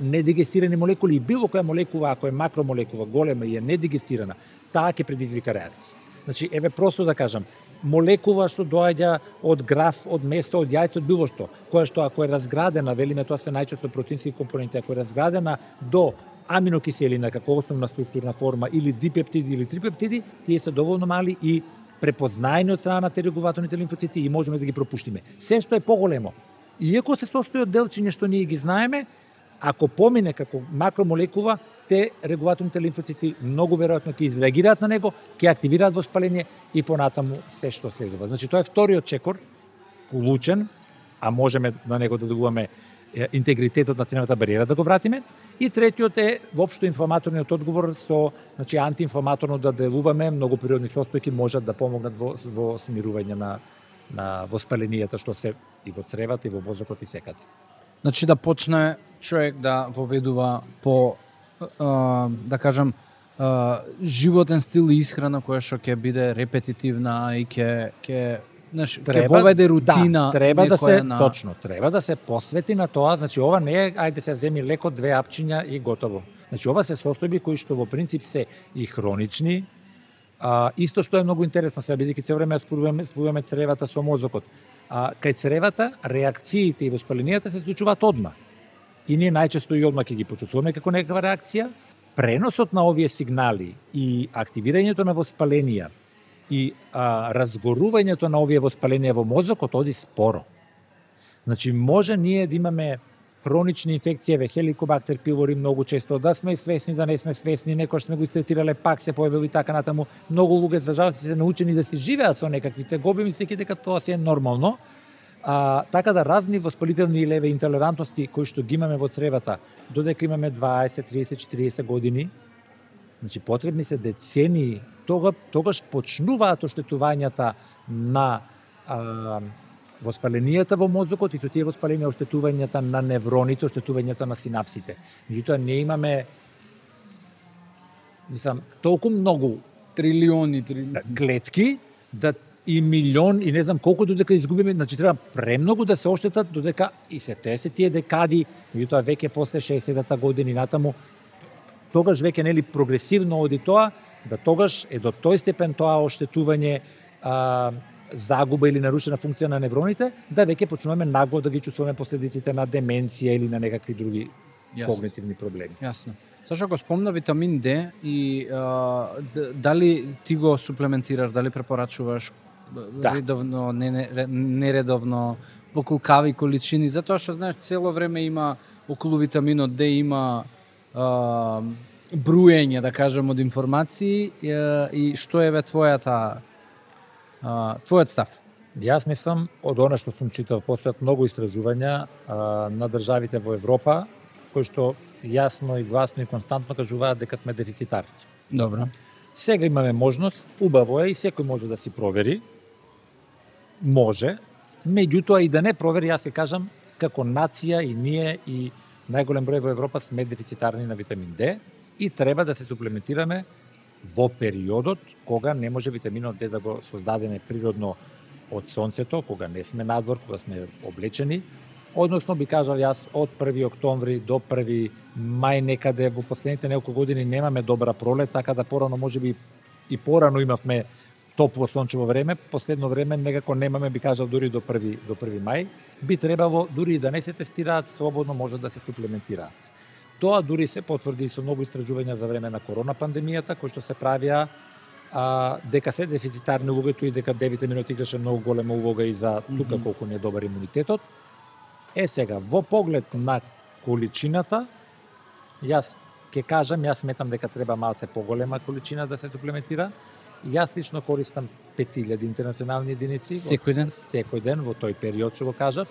недигестирани молекули и било која молекула, ако е макромолекула голема и е недигестирана, таа ќе предизвика реакција. Значи, еве просто да кажам, молекула што доаѓа од граф, од место, од јајце, од било што, која што ако е разградена, велиме тоа се најчесто протеински компоненти, ако е разградена до аминокиселина како основна структурна форма или дипептиди или трипептиди, тие се доволно мали и препознаени од страна на регулаторните лимфоцити и можеме да ги пропуштиме. Се што е поголемо, иако се состои од делчиња што ние ги знаеме, ако помине како макромолекула, те регулаторните лимфоцити многу веројатно ќе изреагираат на него, ќе активираат воспаление и понатаму се што следува. Значи тоа е вториот чекор, клучен, а можеме на него да делуваме интегритетот на цревната бариера да го вратиме. И третиот е воопшто инфламаторниот одговор со, значи антиинфламаторно да делуваме, многу природни состојки можат да помогнат во смирување на воспаленијата што се и во цревата и во мозокот и секаде. Значи да почне човек да воведува по да кажам животен стил и исхрана која што ќе биде репетитивна и ќе воведе рутина. Да, треба да се точно, треба да се посвети на тоа, значи ова не е ајде се земи леко 2 апчиња и готово. Значи ова се состојби кои што во принцип се и хронични, исто што е многу интересно, сега бидејќи цело време спојуваме цревата со мозокот. Кај цревата реакциите и воспаленијата се случуваат одма. И ние најчесто и одма ќе ги почувствуваме како некаква реакција. Преносот на овие сигнали и активирањето на воспаленија и разгорувањето на овие воспаленија во мозокот оди споро. Значи, може ние да имаме хронични инфекции, хеликобактер пилори многу често, да сме свесни, да не сме свесни, некојаш сме го истретирале, пак се појавили така натаму. Многу луѓе за жал се научени да се живеат со некаквите гоби, мислејќи дека тоа се е нормално. Така да разни воспалителни леве интолерантности кои што ги имаме во цревата, додека имаме 20, 30, 40 години, значи потребни се децении, тогаш почнуваат оштетувањата на воспаленијата во мозокот и со тие воспаленија оштетувањата на невроните, оштетувањата на синапсите. Меѓутоа не имаме толку многу трилиони клетки да и милион и не знам колку додека изгубиме, значи треба премногу да се оштетат додека и се тие декади, меѓутоа веќе после 60-та години натаму, тогаш веќе нели прогресивно оди тоа, да тогаш е до тој степен тоа оштетување, загуба или нарушена функција на невроните, да веќе почнуваме нагло да ги чувствуваме последиците на деменција или на некакви други когнитивни проблеми. Јасно. Сашо, го спомна витамин Д и дали ти го суплементираш, дали препорачуваш редовно, нередовно, во колкави количини, затоа што знаеш цело време има околу витаминот Д има бруење, да кажем, од информации и што е твојот став? Јас мислам, од она што сум читал, постојат многу истражувања на државите во Европа, кои што јасно и гласно и константно кажуваат дека сме дефицитарни. Добро. Сега имаме можност, убаво е и секој може да си провери. Може, меѓутоа и да не провери, јас ќе кажам, како нација и ние и најголем број во Европа сме дефицитарни на витамин Д и треба да се суплементираме во периодот кога не може витаминот Д да го создадеме природно од сонцето, кога не сме надвор, кога сме облечени. Односно, би кажал јас, од 1. октомври до 1. мај некаде во последните неколку години немаме добра пролет, така да порано можеби и порано имавме топло сончево време, последно време некако немаме, би кажал, дури до 1. мај. Би требало, дури и да не се тестираат, слободно може да се суплементираат. Тоа дури се потврди со многу истражувања за време на корона пандемијата, кои што се правија, дека се дефицитарни луѓето и дека D-витаминот играше многу голема улога и за тука колку не е добар имунитетот. Сега, во поглед на количината, јас ќе кажам, јас сметам дека треба малце поголема количина да се суплементира. Јас лично користам 5000 интернационални единици секој ден? Секој ден во тој период што го кажав.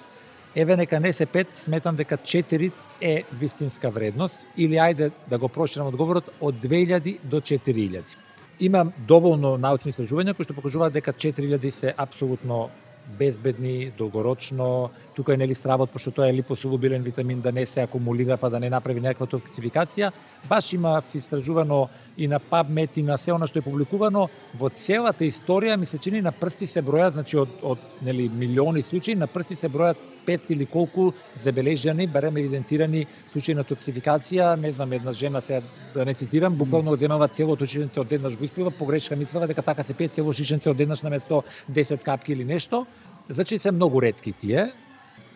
Еве нека не се 5, сметам дека 4 е вистинска вредност или ајде да го проширам одговорот од 2000 до 4000. Има доволно научни истражувања кои што покажуваат дека 4000 се апсолутно безбедни, долгорочно. Тука е нели стравот, пошто тоа е липосолубилен витамин, да не се акумулира па да не направи некаква токсификација. Баш има истражувано и на PubMed и на се она што е публикувано во целата историја, ми се чини на прсти се бројат, значи од нели милиони случаи, на прсти се бројат 5 или колку забележани, барем евидентирани случаи на токсификација. Не знам, една жена, се да не цитирам, буквално земава целото шишенце одеднаш го испива, погрешка мислела дека така се пие цело шишенце одеднаш наместо 10 капки или нешто. Значи се многу ретки тие.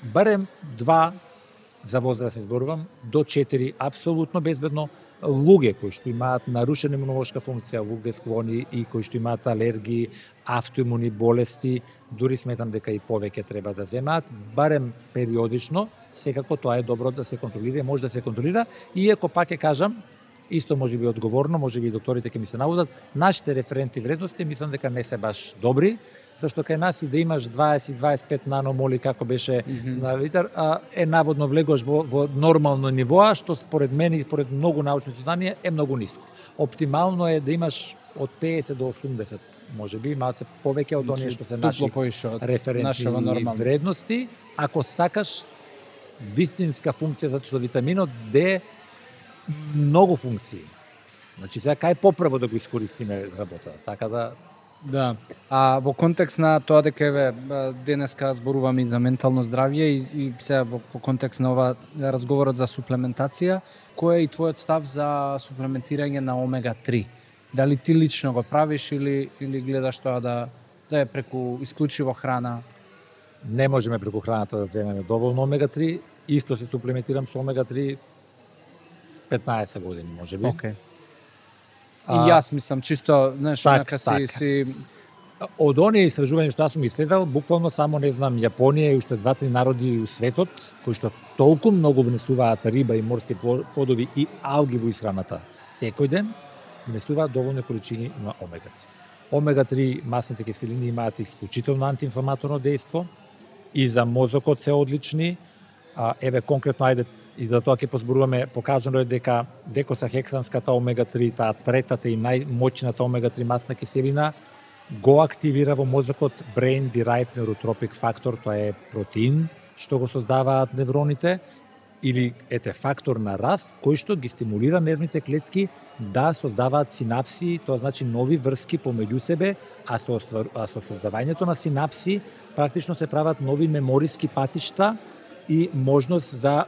Барем 2, за возраст зборувам, до 4 апсолутно безбедно. Луѓе кои што имаат нарушена имунолошка функција, луѓе склони и кои што имаат алергии, автоимуни болести, дури сметам дека и повеќе треба да земаат, барем периодично, секако тоа е добро да се контролира, може да се контролира, иако пак ќе кажам, исто може би одговорно, може би докторите ќе ми се наводат, нашите референтни вредности мислам дека не се баш добри, зашто кај нас и да имаш 20-25 наномоли како беше на литар, е наводно влегуваш во нормално ниво, што според мене и според многу научни изследувања е многу ниско. Оптимално е да имаш од 50 до 80, можеби, малце повеќе од оние што се наши референтни вредности. Ако сакаш вистинска функција, затоа што витаминот Д многу функции. Значи сега кај поправо да го искористиме работата, така да. Да. А во контекст на тоа дека еве денеска зборуваме и за ментално здравје и сега во контекст на ова разговорот за суплементација, кој е и твојот став за суплементирање на омега 3? Дали ти лично го правиш или гледаш тоа да е преку исклучиво храна? Не можеме преку храната да земеме доволно омега 3, исто се суплементирам со омега 3 15 години можеби. Okay. И јас мислам чисто, знаеш, онака си од оние истражувања што сум исследувал, буквално само не знам Јапонија и уште 2-3 народи у светот кои што толку многу внесуваат риба и морски плодови и алги во исхраната секој ден, внесуваат доволни количини на омега 3. Омега 3 масните киселини имаат исклучително антиинфламаторно дејство и за мозокот се одлични. Еве конкретно ајде и за тоа ќе позборуваме, покажано е дека декосахексанската омега 3, таа третата и најмоќната омега 3 масна киселина, го активира во мозокот Brain Derived Neurotrophic Factor, тоа е протеин што го создаваат невроните или фактор на раст кој што ги стимулира нервните клетки да создаваат синапси, тоа значи нови врски помеѓу себе, а со создавањето на синапси практично се прават нови мемориски патишта и можност за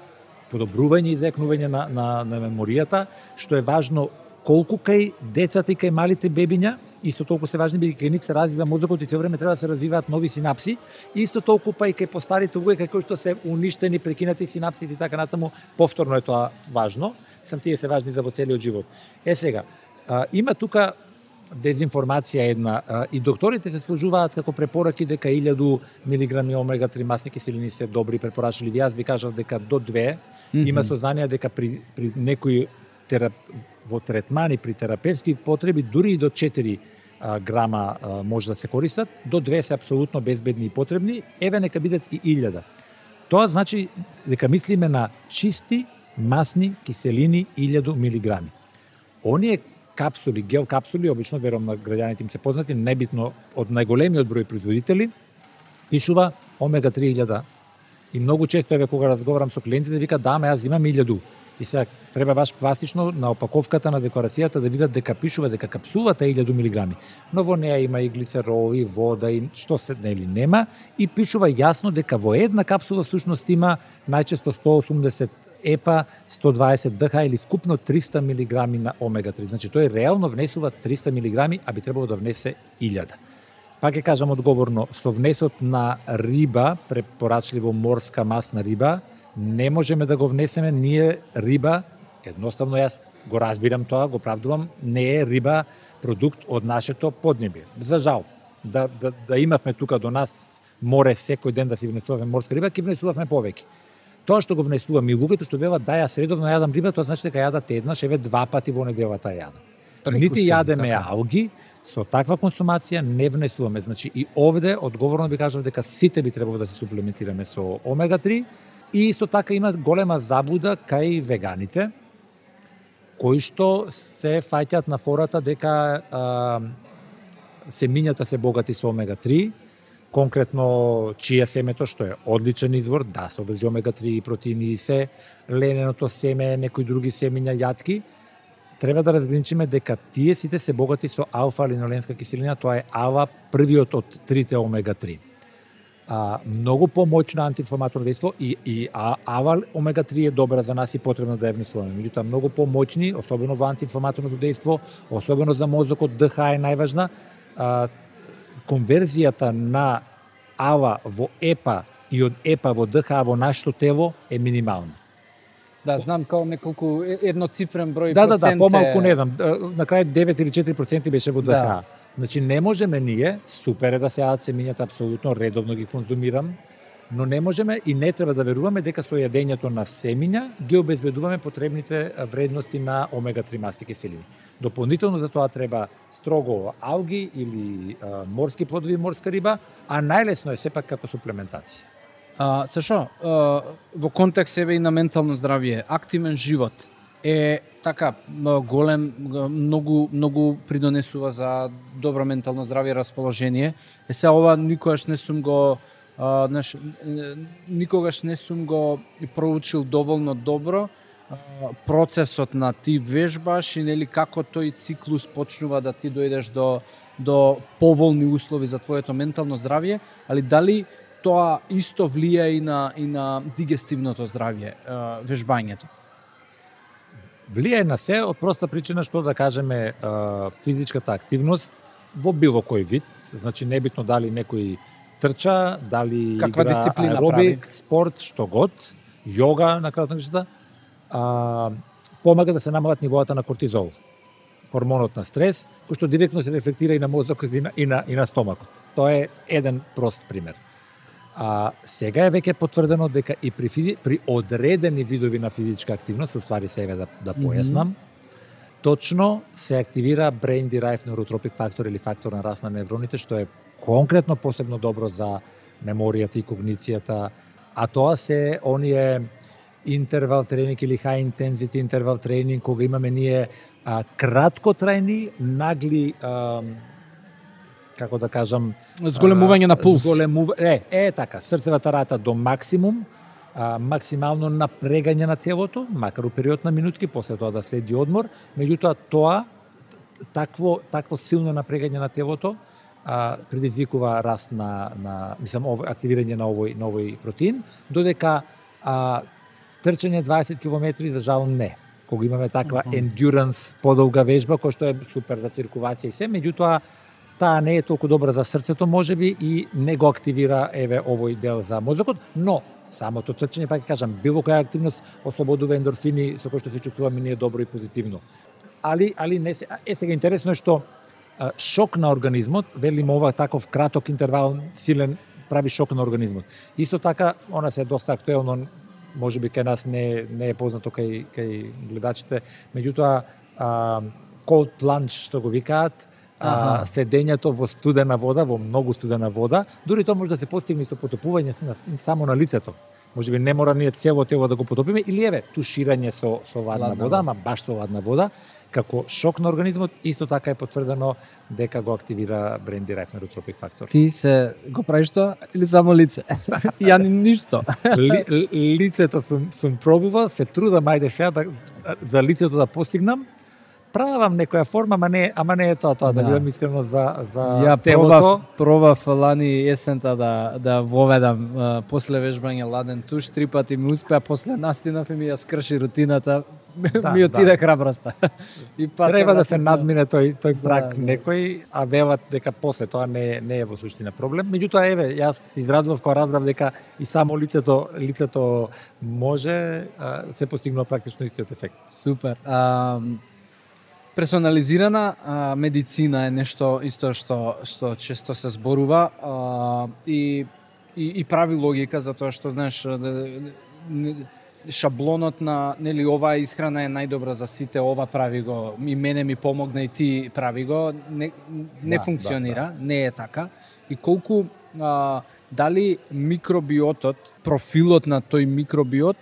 подобрување и заекнување на меморијата, што е важно колку кај децата и кај малите бебиња, исто толку се важни, бидејќи кај нив се развива мозокот и се време треба да се развиваат нови синапси, исто толку па и кај постарите луѓе кои што се уништени, прекинати синапсите и така натаму, повторно е тоа важно. Сам тие се важни за во целиот живот. Сега, има тука дезинформација една, и докторите се служуваат како препораки дека 1000 милиграми омега-3 масни киселини се добри препорачливи. Јас би кажав дека до 2 има сознание дека при некои во третмани, при терапевски потреби, дури и до 4 грама може да се користат, до 2 се апсолутно безбедни и потребни, еве нека бидат и 1000. Тоа значи дека мислиме на чисти масни киселини 1000 милиграми. Оние капсули, гел капсули, обично верувам на граѓаните им се познати, небитно од најголемиот број производители, пишува омега-3 1000. И многу често еве кога разговарам со клиентите вика да, ама јас имам 1000. И сега треба баш пластично на опаковката на декларацијата да видат дека пишува дека капсулата е 1000 милиграми. Но во неа има и глицерол, и вода, и што се нели нема, и пишува јасно дека во една капсула всушност има најчесто 180 епа, 120 ДХ или скупно 300 милиграми на омега-3. Значи тој реално внесува 300 милиграми, а би требало да внесе 1000. Пак ќе кажам одговорно, со внесот на риба, препорачливо морска масна риба, не можеме да го внесеме, ние риба, едноставно јас го разбирам тоа, го правдувам, не е риба продукт од нашето поднебие. За жал, да имавме тука до нас море секој ден да си внесуваме морска риба, ќе внесувавме повеќе. Тоа што го внесуваме и луѓето што велат да јас редовно јадам риба, тоа значи дека јадат еднаш, еве 2 пати во неделата јадат. Нити јадеме алги, со таква консумација не внесуваме. Значи и овде одговорно би кажав дека сите би требало да се суплементираме со омега-3. И исто така има голема заблуда кај веганите, кои што се фаќаат на фората дека семињата се богати со омега-3, конкретно чија семето, што е одличен извор, да, содржи омега-3 протеини и се, лененото семе, некои други семиња, јатки, треба да разграничиме дека тие сите се богати со алфа-линоленска киселина, тоа е АЛА, првиот од трите омега-3. Многу помоćно антиинфламаторно дејство и АЛА омега-3 е добра за нас и потребно да ја внесуваме. Меѓутоа многу помоćни, особено во антиинфламаторното дејство, особено за мозокот, ДХ е најважна. Конверзијата на АЛА во ЕПА и од ЕПА во ДХ во нашето тело е минимална. Да, знам као неколку едноцифрен број процент. Да, помалку не знам. На крај 9 или 4% беше во ДХ. Да. Значи не можеме ние, супер е да се јадат семињата, апсолутно редовно ги конзумирам, но не можеме и не треба да веруваме дека со јадењето на семиња ги обезбедуваме потребните вредности на омега-3 масни киселини. Дополнително за тоа треба строго алги или морски плодови, морска риба, а најлесно е сепак како суплементација. Сашо, во контекст еве и на ментално здравје, активен живот е така голем, многу придонесува за добро ментално здравје и расположение. Сега ова никогаш не сум го проучил доволно добро процесот на ти вежбаш и нели како тој циклус почнува да ти дојдеш до поволни услови за твоето ментално здравје, али дали тоа исто влија и на дигестивното здравје, вежбањето? Влијае на се од проста причина што да кажеме физичката активност во било кој вид, значи небитно дали некој трча, дали каква игра аеробик, прави? спорт, што год, јога на крајот на крајшата, помага да се намалат нивоата на кортизол, хормонот на стрес, кој што директно се рефлектира и на мозокот и на стомакот. Тоа е еден прост пример. Сега е веќе потврдено дека и при одредени видови на физичка активност, уствари се еве да појаснам, точно се активира brain derived neurotrophic factor или фактор на раст на невроните, што е конкретно посебно добро за меморијата и когницијата, а тоа се оние интервал тренинг или high intensity интервал тренинг, кога имаме ние краткотрајни, нагли како да кажам, зголемување на пулс. Така, срцевата рата до максимум, максимално напрегање на телото, макар у период на минутки, после тоа да следи одмор, меѓутоа такво силно напрегање на телото предизвикува раст активирање на овој протеин, додека трчање 20 км за жал не. Кога имаме таква endurance подолга вежба, која што е супер за циркулација и се, меѓутоа таа не е толку добра за срцето можеби и не го активира овој дел за мозокот, но самото трчање, пак кажам, било која активност ослободува ендорфини со кои што се чувствуваме ние добро и позитивно. Али не се сега интересно е што шок на организмот, велиме ова таков краток интервал силен прави шок на организмот. Исто така, она се доста актуелно, можеби кај нас не е познато кај гледачите, меѓутоа cold plunge што го викаат, седењето во студена вода, во многу студена вода, дури тоа може да се постигне со потопување само на лицето. Можеби не мора ние цело тело да го потопиме, или туширање со ладна вода, ама баш со ладна вода, како шок на организмот, исто така е потврдено дека го активира brain derived neurotrophic factor. Ти се го правиш тоа или само лице? Ја ништо. Лицето сум пробувал, се трудам ајде сега за лицето да постигнам. Правам некоја форма, ама не е тоа, да бидам искрено за телото. Пробав лани есента да воведам после вежбање ладен туш, 3 пати ми успеа, после настинав и ми ја скрши рутината. Ми отиде храброста. Треба да се надмине тој прак некој, а велат дека после тоа не е во суштина проблем. Меѓутоа јас израдував кога разбрав дека и само лицето може, се постигнува практично истиот ефект. Супер. Персонализирана медицина е нешто исто што често се зборува и прави логика, затоа што знаеш шаблонот на оваа исхрана е најдобра за сите, ова прави го, и мене ми помогна и ти прави го, не функционира, не е така. И колку дали микробиотот, профилот на тој микробиот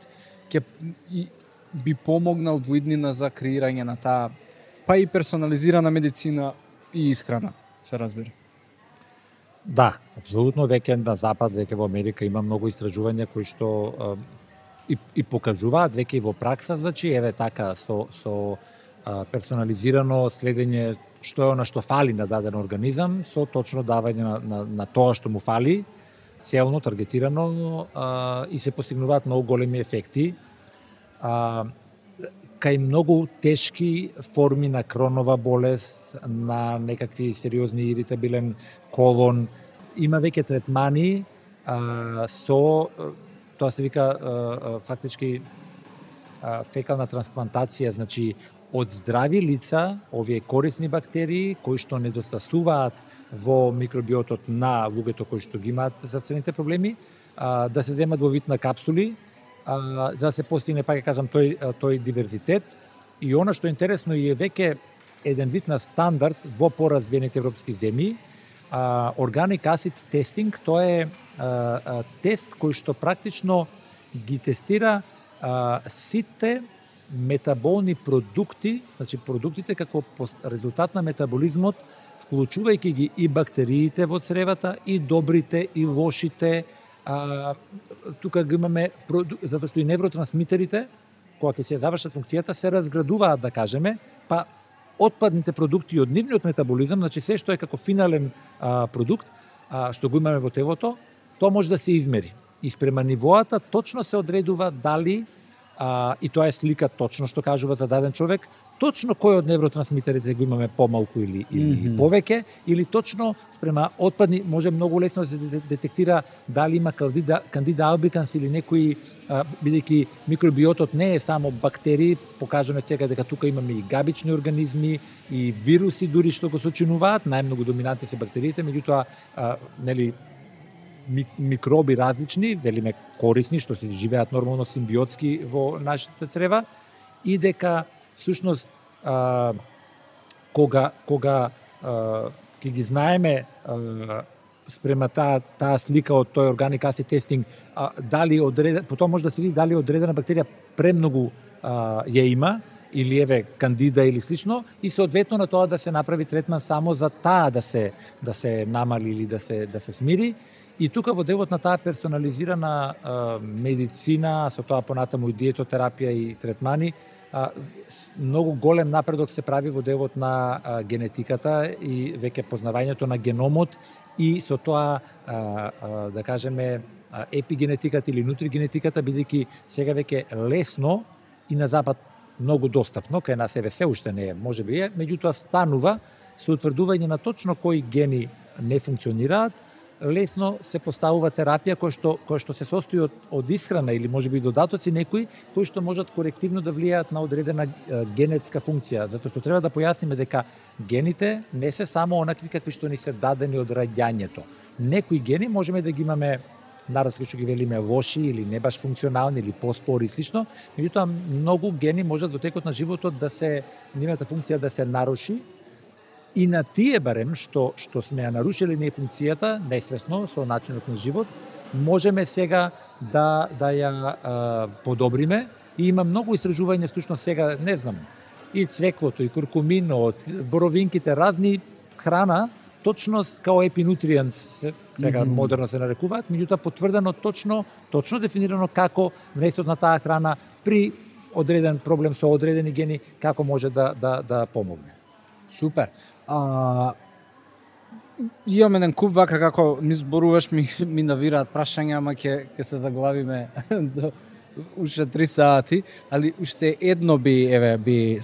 би помогнал во иднина за креирање на таа па и персонализирана медицина и исхрана, се разбира. Да, апсолутно, веќе на запад, веќе во Америка има многу истражувања кои што и покажуваат веќе и во пракса, значи така со персонализирано следење што е она што фали на даден организам, со точно давање на тоа што му фали, целно, таргетирано и се постигнуваат многу големи ефекти. Кај многу тешки форми на кронова болест, на некакви сериозни иритабилен колон, има веќе третмани со тоа се вика фактички фекална трансплантација, значи од здрави лица, овие корисни бактерии кои што недостасуваат во микробиотот на луѓето кои што ги имаат здравствените проблеми, да се земат во вид на капсули, за да се постигне, пак кажам, тој диверзитет. И она што е интересно и е веќе еден вид на стандард во поразвиените европски земји, Organic Acid Testing, тоа е тест кој што практично ги тестира сите метаболни продукти, значи продуктите како резултат на метаболизмот, вклучувајќи ги и бактериите во цревата, и добрите, и лошите. Тука ги имаме, затоа што и невротрансмитерите, кога ќе се завршат функцијата, се разградуваат, да кажеме, па отпадните продукти од нивниот метаболизам, значи се што е како финален продукт, што го имаме во телото, тоа може да се измери. И спрема нивоата точно се одредува дали, и тоа е слика точно што кажува за даден човек, точно кој од невротрансмитерите го имаме помалку или повеќе, или точно спрема отпадни, може многу лесно да се детектира дали има кандида албиканс или некои, бидејќи микробиотот не е само бактерии, покажаме сега дека тука имаме и габични организми, и вируси дури што го сочинуваат, најмногу доминантни се бактериите, меѓутоа микроби различни, велиме корисни, што се живеат нормално симбиотски во нашите црева, и дека всушност кога ќе ги знаеме спрема таа слика од тој Organic Acid Testing, дали потоа може да се види дали одредена бактерија премногу ја има, или кандида или слично, и соодветно на тоа да се направи третман само за таа да се намали или да се смири. И тука во делот на таа персонализирана медицина, со тоа понатаму и диетотерапија и третмани, многу голем напредок се прави во делот на генетиката и веќе познавањето на геномот и со тоа, да кажеме, епигенетиката или нутригенетиката, бидејќи сега веќе лесно и на запад многу достапно, кај нас еве се уште не е, можеби е, меѓутоа станува со утврдување на точно кои гени не функционираат, лесно се поставува терапија која што се состои од исхрана или можеби додатоци некои кои што можат корективно да влијаат на одредена генетска функција, затоа што треба да појасниме дека гените не се само онакви какви што ни се дадени од раѓањето. Некои гени можеме да ги имаме народски што ги велиме лоши или не баш функционални или поспори и слично, меѓутоа многу гени можат во текот на животот да се нивната функција да се наруши. И на тие барем што сме ја нарушили не функцијата, несвесно со начинот на живот, можеме сега да ја подобриме и има многу истражувања случно сега, не знам, и цвеклото, и куркуминот, боровинките, разни храна, точно као епинутриенс сега модерно се нарекуваат, меѓутоа потврдено точно дефинирано како внесот на таа храна при одреден проблем со одредени гени како може да помогне. Супер. Имам еден куп вака како ми зборуваш ми навираат прашања, ама ќе се заглавиме до уште 3 сати, али уште едно би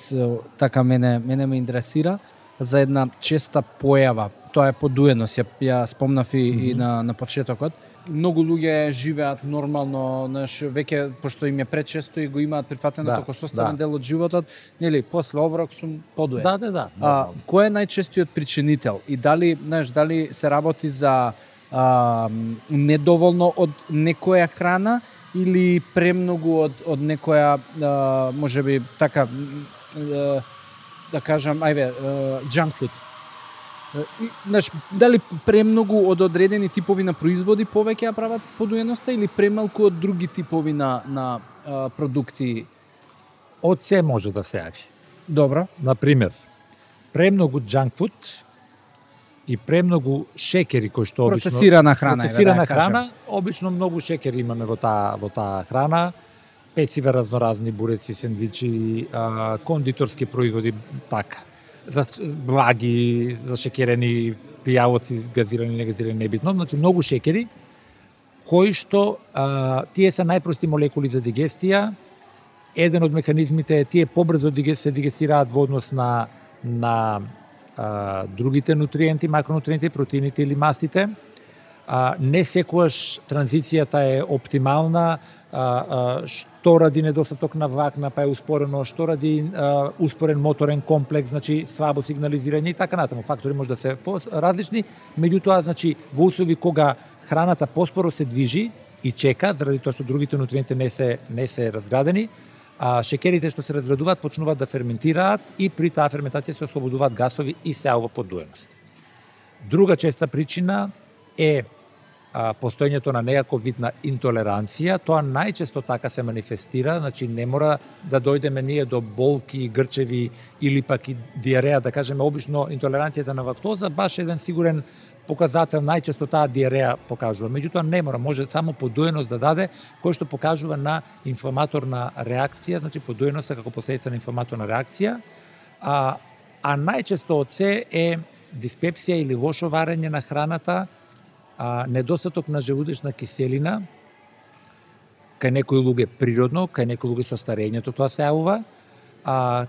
така мене ме интересира за една честа појава. Тоа е подуеност, ја спомнав и на почетокот. Многу луѓе живеат нормално, веќе пошто им е пречесто и го имаат прифатено како составен дел од животот, нели, после оброк сум подуен. Да. Кој е најчестиот причинител и дали се работи за недоволно од некоја храна или премногу од некоја можеби така да кажам, junk food. Дали премногу од одредени типови на производи повеќе ја прават подуеноста или премалку од други типови на продукти? Од се може да се јави. Добро. Например, премногу junk food и премногу шекери кои што обично процесирана храна, обично многу шекери имаме во таа храна, пецива, разноразни буреци, сендвичи, кондиторски производи, така. За благи, за шекерени пијалоци, газирани, негазирани, небитно, значи многу шекери, кои што тие се најпрости молекули за дигестија. Еден од механизмите е тие побрзо се дигестираат во однос на другите нутриенти, макронутриенти, протеините или мастите. Не секогаш транзицијата е оптимална, што ради недостаток на влакна, па е успорено, што ради успорен моторен комплекс, значи слабо сигнализирање и така натаму. Фактори може да се различни, меѓутоа, значи, во услови кога храната поспоро се движи и чека, заради тоа што другите нутриенти не се разградени, шекерите што се разградуваат почнуваат да ферментираат и при таа ферментација се ослободуваат гасови и се јавува подуеност. Друга честа причина е постоењето на некаков вид на интолеранција. Тоа најчесто така се манифестира, значи не мора да дојдеме ние до болки, грчеви или пак и диареја, да кажеме, обично интолеранцијата на лактоза, баш еден сигурен показател, најчесто таа диареја покажува. Меѓутоа не мора, може само подуеност да даде, кој што покажува на инфламаторна реакција, значи подуеноста како последица на инфламаторна реакција, а најчесто од се е диспепсија или лошо варење на храната, недостаток на желудечна киселина, кај некои луѓе природно, кај некои луѓе со старењето тоа се јавува,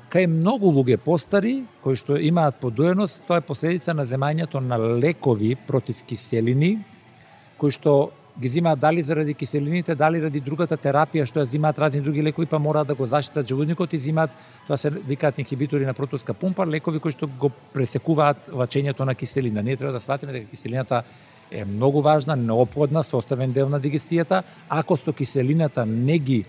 кај многу луѓе постари, кои што имаат подуеност, тоа е последица на земањето на лекови против киселини, кои што ги земаат дали заради киселините, дали ради другата терапија што ја земаат разни други лекови, па мораат да го заштитат желудникот и земаат, тоа се викаат инхибитори на протонска пумпа, лекови кои што го пресекуваат лачењето на киселина. Ние треба да сватиме дека киселината е многу важна, неопходна, составен дел на дигестијата. Ако со киселината не ги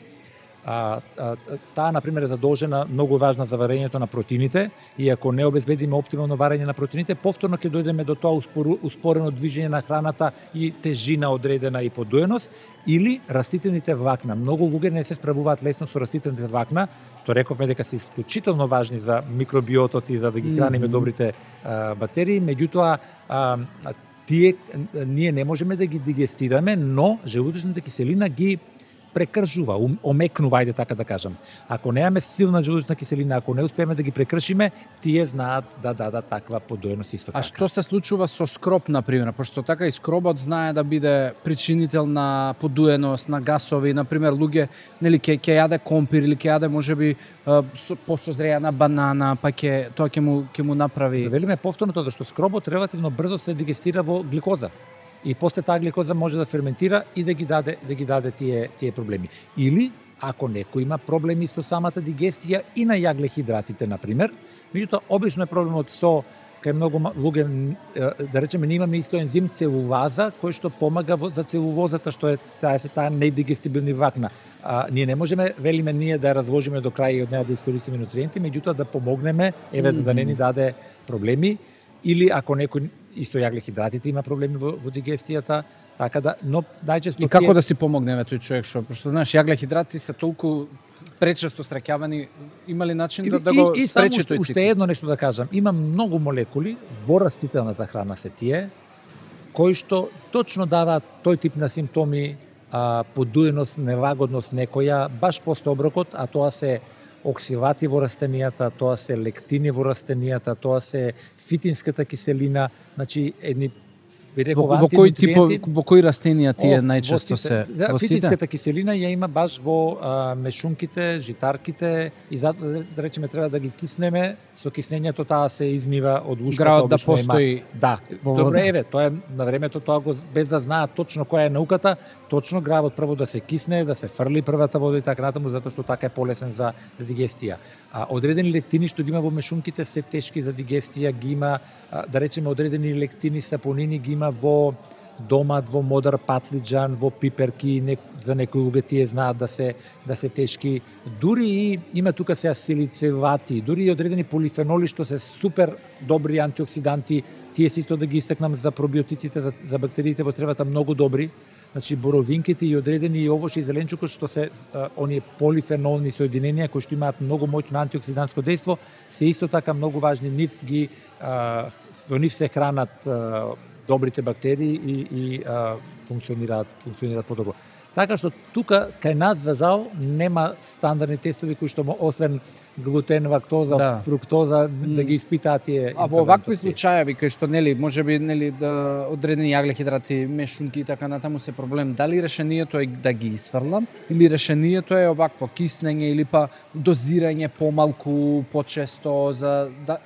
таа, например, е задолжена, многу важна за варењето на протеините, и ако не обезбедиме оптимално варење на протеините, повторно ќе дојдеме до тоа успорено движење на храната и тежина одредена и подуеност, или растителните влакна. Многу луѓе не се справуваат лесно со растителните влакна, што рековме дека се исклучително важни за микробиотот и за да ги храниме добрите бактерии, меѓутоа ние не можеме да ги дигестираме, но желудочната киселина ги прекршува, омекнува, ајде така да кажам. Ако немаме силна желудочна киселина, ако не успееме да ги прекршиме, тие знаат да дадат таква подоеност исто така. А што се случува со скроб, например? Пошто така и скробот знае да биде причинител на подуеност, на гасови, например, луѓе, нели ќе јаде компир или ќе јаде можеби посозреана банана, па тоа ќе му направи. Да велиме повторно тоа што скробот релативно брзо се дигестира во гликоза. И после таа гликоза може да ферментира и да ги даде тие проблеми. Или ако некој има проблеми со самата дигестија и на јаглехидратите, например, меѓутоа обично е проблемот со кај многу луѓе, да речеме, ние имаме исто ензим целулаза кој што помага за целулозата, што е таа недигестибилни влакна. Ние не можеме, велиме ние да ја разложиме до крај и од неа да искористиме нутриенти, меѓутоа да помогнеме за да не ни даде проблеми, или ако некој исто јаглехидратите има проблеми во дигестијата, така да, но најчесто и како да си помогнеме тој човек што знаеш, јаглехидрати се толку пречесто сраќавани, има ли начин да го спречи тој цикл? Уште едно нешто да кажам, има многу молекули во растителната храна се тие кои што точно даваат тој тип на симптоми, подуеност, нелагодност некоја баш после оброкот, а тоа се оксивати во растенијата, тоа се лектини во растенијата, тоа се фитинската киселина, значи едни во кој тип, во кои растенија тие најчесто се во сите? Фитинската киселина ја има баш во мешунките, житарките и да речеме треба да ги киснеме, со киснењето таа се измива од ушкото. Гравот да постои. Да. Добро, еве, тоа е на времето, тоа го без да знаат точно која е науката, точно гравот прво да се кисне, да се фрли првата вода и така натаму, затоа што така е полесен за дигестија. Одредени лектини што ги има во мешунките се тешки за дигестија, ги има, да речеме, одредени лектини, сапонини ги има во домат, во модар патлиџан, во пиперки, за некои луѓе тие знаат да се тешки. Дури и има тука се асилицевати, дури и одредени полифеноли што се супер добри антиоксиданти, тие се исто да ги истакнам за пробиотиците, за бактериите во тревата многу добри. Значи боровинките и одредени и овошје и зеленчукот што се оние полифенолни соединенија кои што имаат многу моќно антиоксидантско дејство, се исто така многу важни. Со нив се хранат добрите бактерии и функционираат подобро. Така што тука кај нас за жал нема стандардни тестови кои што освен глутен, лактоза, фруктоза да ги испитаат тие. А во вакви случаи кај што можеби да одредени јаглехидрати, мешунки и така натаму се проблем, дали решението е да ги исфрлам или решението е овакво киснење или па дозирање помалку, почесто,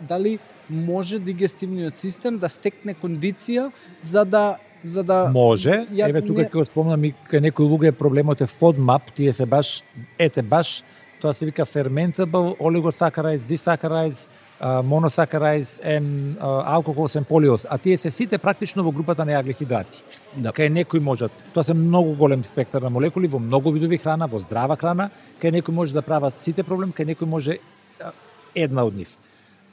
дали може дигестивниот систем да стекне кондиција за да може. Еве тука ќе го спомнам и кај некои луѓе проблемот е FODMAP, тие се баш тоа се вика fermentable oligosaccharides, disaccharides, monosaccharides and alcohols and polyols, а тие се сите практично во групата на јаглехидрати. Да. Кај некои можат, тоа се многу голем спектар на молекули во многу видови храна, во здрава храна, кај некои може да прават сите проблем, кај некои може една од нив.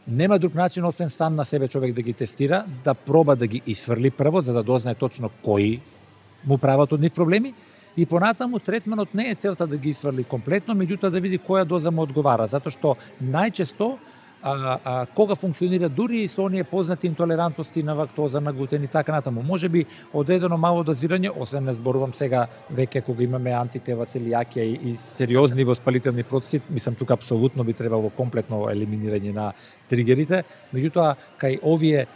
Нема друг начин освен сам на себе човек да ги тестира, да проба да ги исфрли прво за да дознае точно кои му прават од нив проблеми. И понатаму третманот не е целта да ги исфрли комплетно, меѓутоа да види која доза му одговара, затоа што најчесто кога функционира дури и со оние познати интолерантности на лактоза, на глутен и така натаму. Можеби одредено мало дозирање, освен не зборувам сега веќе кога имаме антитела, целијакија и сериозни воспалителни процеси, мислам тука апсолутно би требало комплетно елиминирање на тригерите, меѓутоа кај овие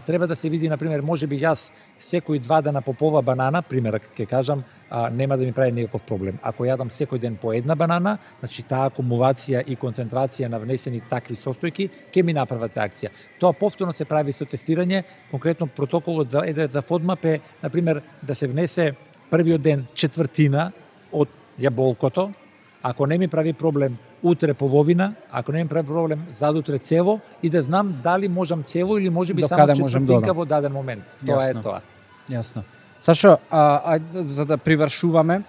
треба да се види, например, можеби јас секој 2 дена по пола банана, пример ќе кажам, нема да ми прави никаков проблем. Ако јадам секој ден по една банана, значи таа акумулација и концентрација на внесени такви состојки ќе ми направат реакција. Тоа повторно се прави со тестирање, конкретно протоколот за FODMAP е, например, да се внесе првиот ден четвртина од јаболкото, ако не ми прави проблем утре половина, ако не ми прави проблем задутре цело и да знам дали можам цело или можеби само четвртинка во даден момент. Тоа е тоа. Јасно. Сашо, за да привршуваме,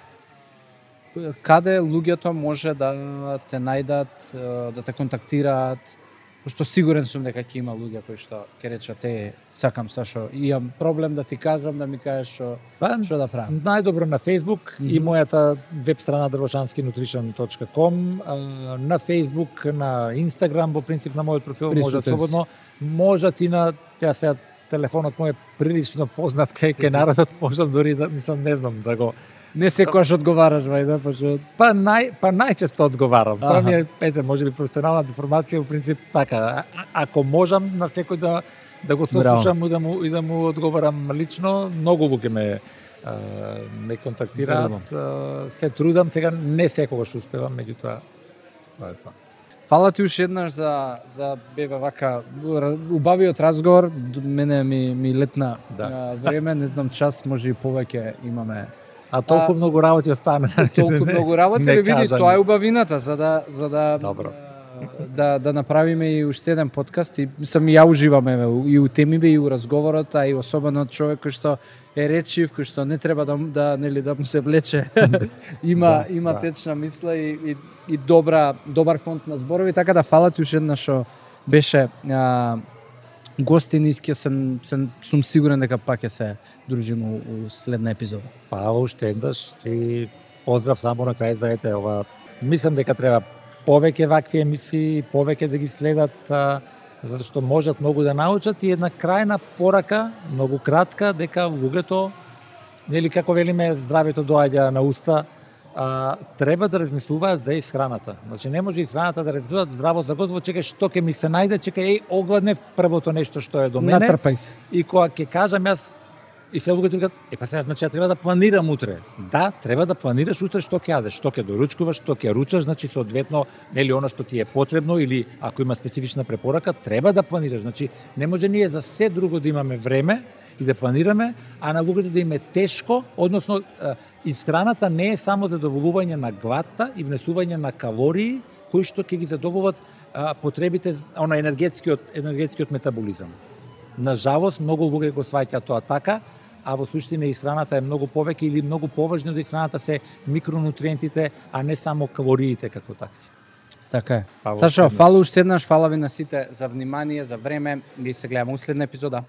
каде луѓето може да те најдат, да те контактираат? Пошто сигурен сум дека ќе има луѓе кои што ќе речат сакам Сашо, имам проблем да ти кажам, да ми кажеш што да правам. Најдобро на Facebook и мојата веб страна drvošanskinutrition.com, на Facebook, на Instagram, во принцип на мојот профил можат слободно, можат и на телефонот мој е прилично познат кај народот, можам дори да, мислам, не знам да го... Не секогаш одговараш, вајда, Па најчесто одговарам. Тоа ми е, може би професионална деформација, во принцип така. Ако можам на секој да го сослушам и да му одговарам лично, многу луѓе ме контактираат, се трудам, сега не секогаш успевам, меѓутоа тоа е тоа. Фала ти уште еднаш за бева вака убавиот разговор, мене ми летна време, не знам час, може и повеќе имаме. А толку многу работи остана. Толку многу работи, види, тоа е убавината, за да Добро. Да направиме и уште еден подкаст и сам ја уживам и у темиве и у разговорот, а и особено човек кој што е речив, кој што не треба да му се влече. има течна мисла и добар фонд на зборови, така да фала ти уште еднаш што беше гостин и сум сигурен дека пак ќе се дружиме у следна епизода. Фала уште еднаш и поздрав само на крај за ова. Мислам дека треба повеќе вакви емисии, повеќе да ги следат, затоа што можат многу да научат и една крајна порака, многу кратка, дека луѓето, нели како велиме, здравето доаѓа на уста, треба да размислуваат за исхраната. Значи не може исхраната да размислуваат здраво за готово, чекај што ќе ми се најде, чекај огладнев првото нешто што е до мене. Натрпај се. И кога ќе кажам јас и се луѓето викаат, па сега значи треба да планирам утре. Да, треба да планираш утре што ќе јадеш, што ќе доручкуваш, што ќе ручаш, значи соодветно нели она што ти е потребно или ако има специфична препорака, треба да планираш. Значи не може ние за се друго да имаме време и да планираме, а на луѓето да им е тешко, односно исхраната не е само задоволување на гладта и внесување на калории кои што ќе ги задоволат потребите енергетскиот метаболизам. На жалост многу луѓе го сваќаат тоа така, а во суштина исхраната е многу повеќе или многу поважно да исхраната се микронутриентите, а не само калориите како такви. Така е. Сашо, фала уште еднаш, фала ви на сите за внимание, за време и се гледаме у следна епизода.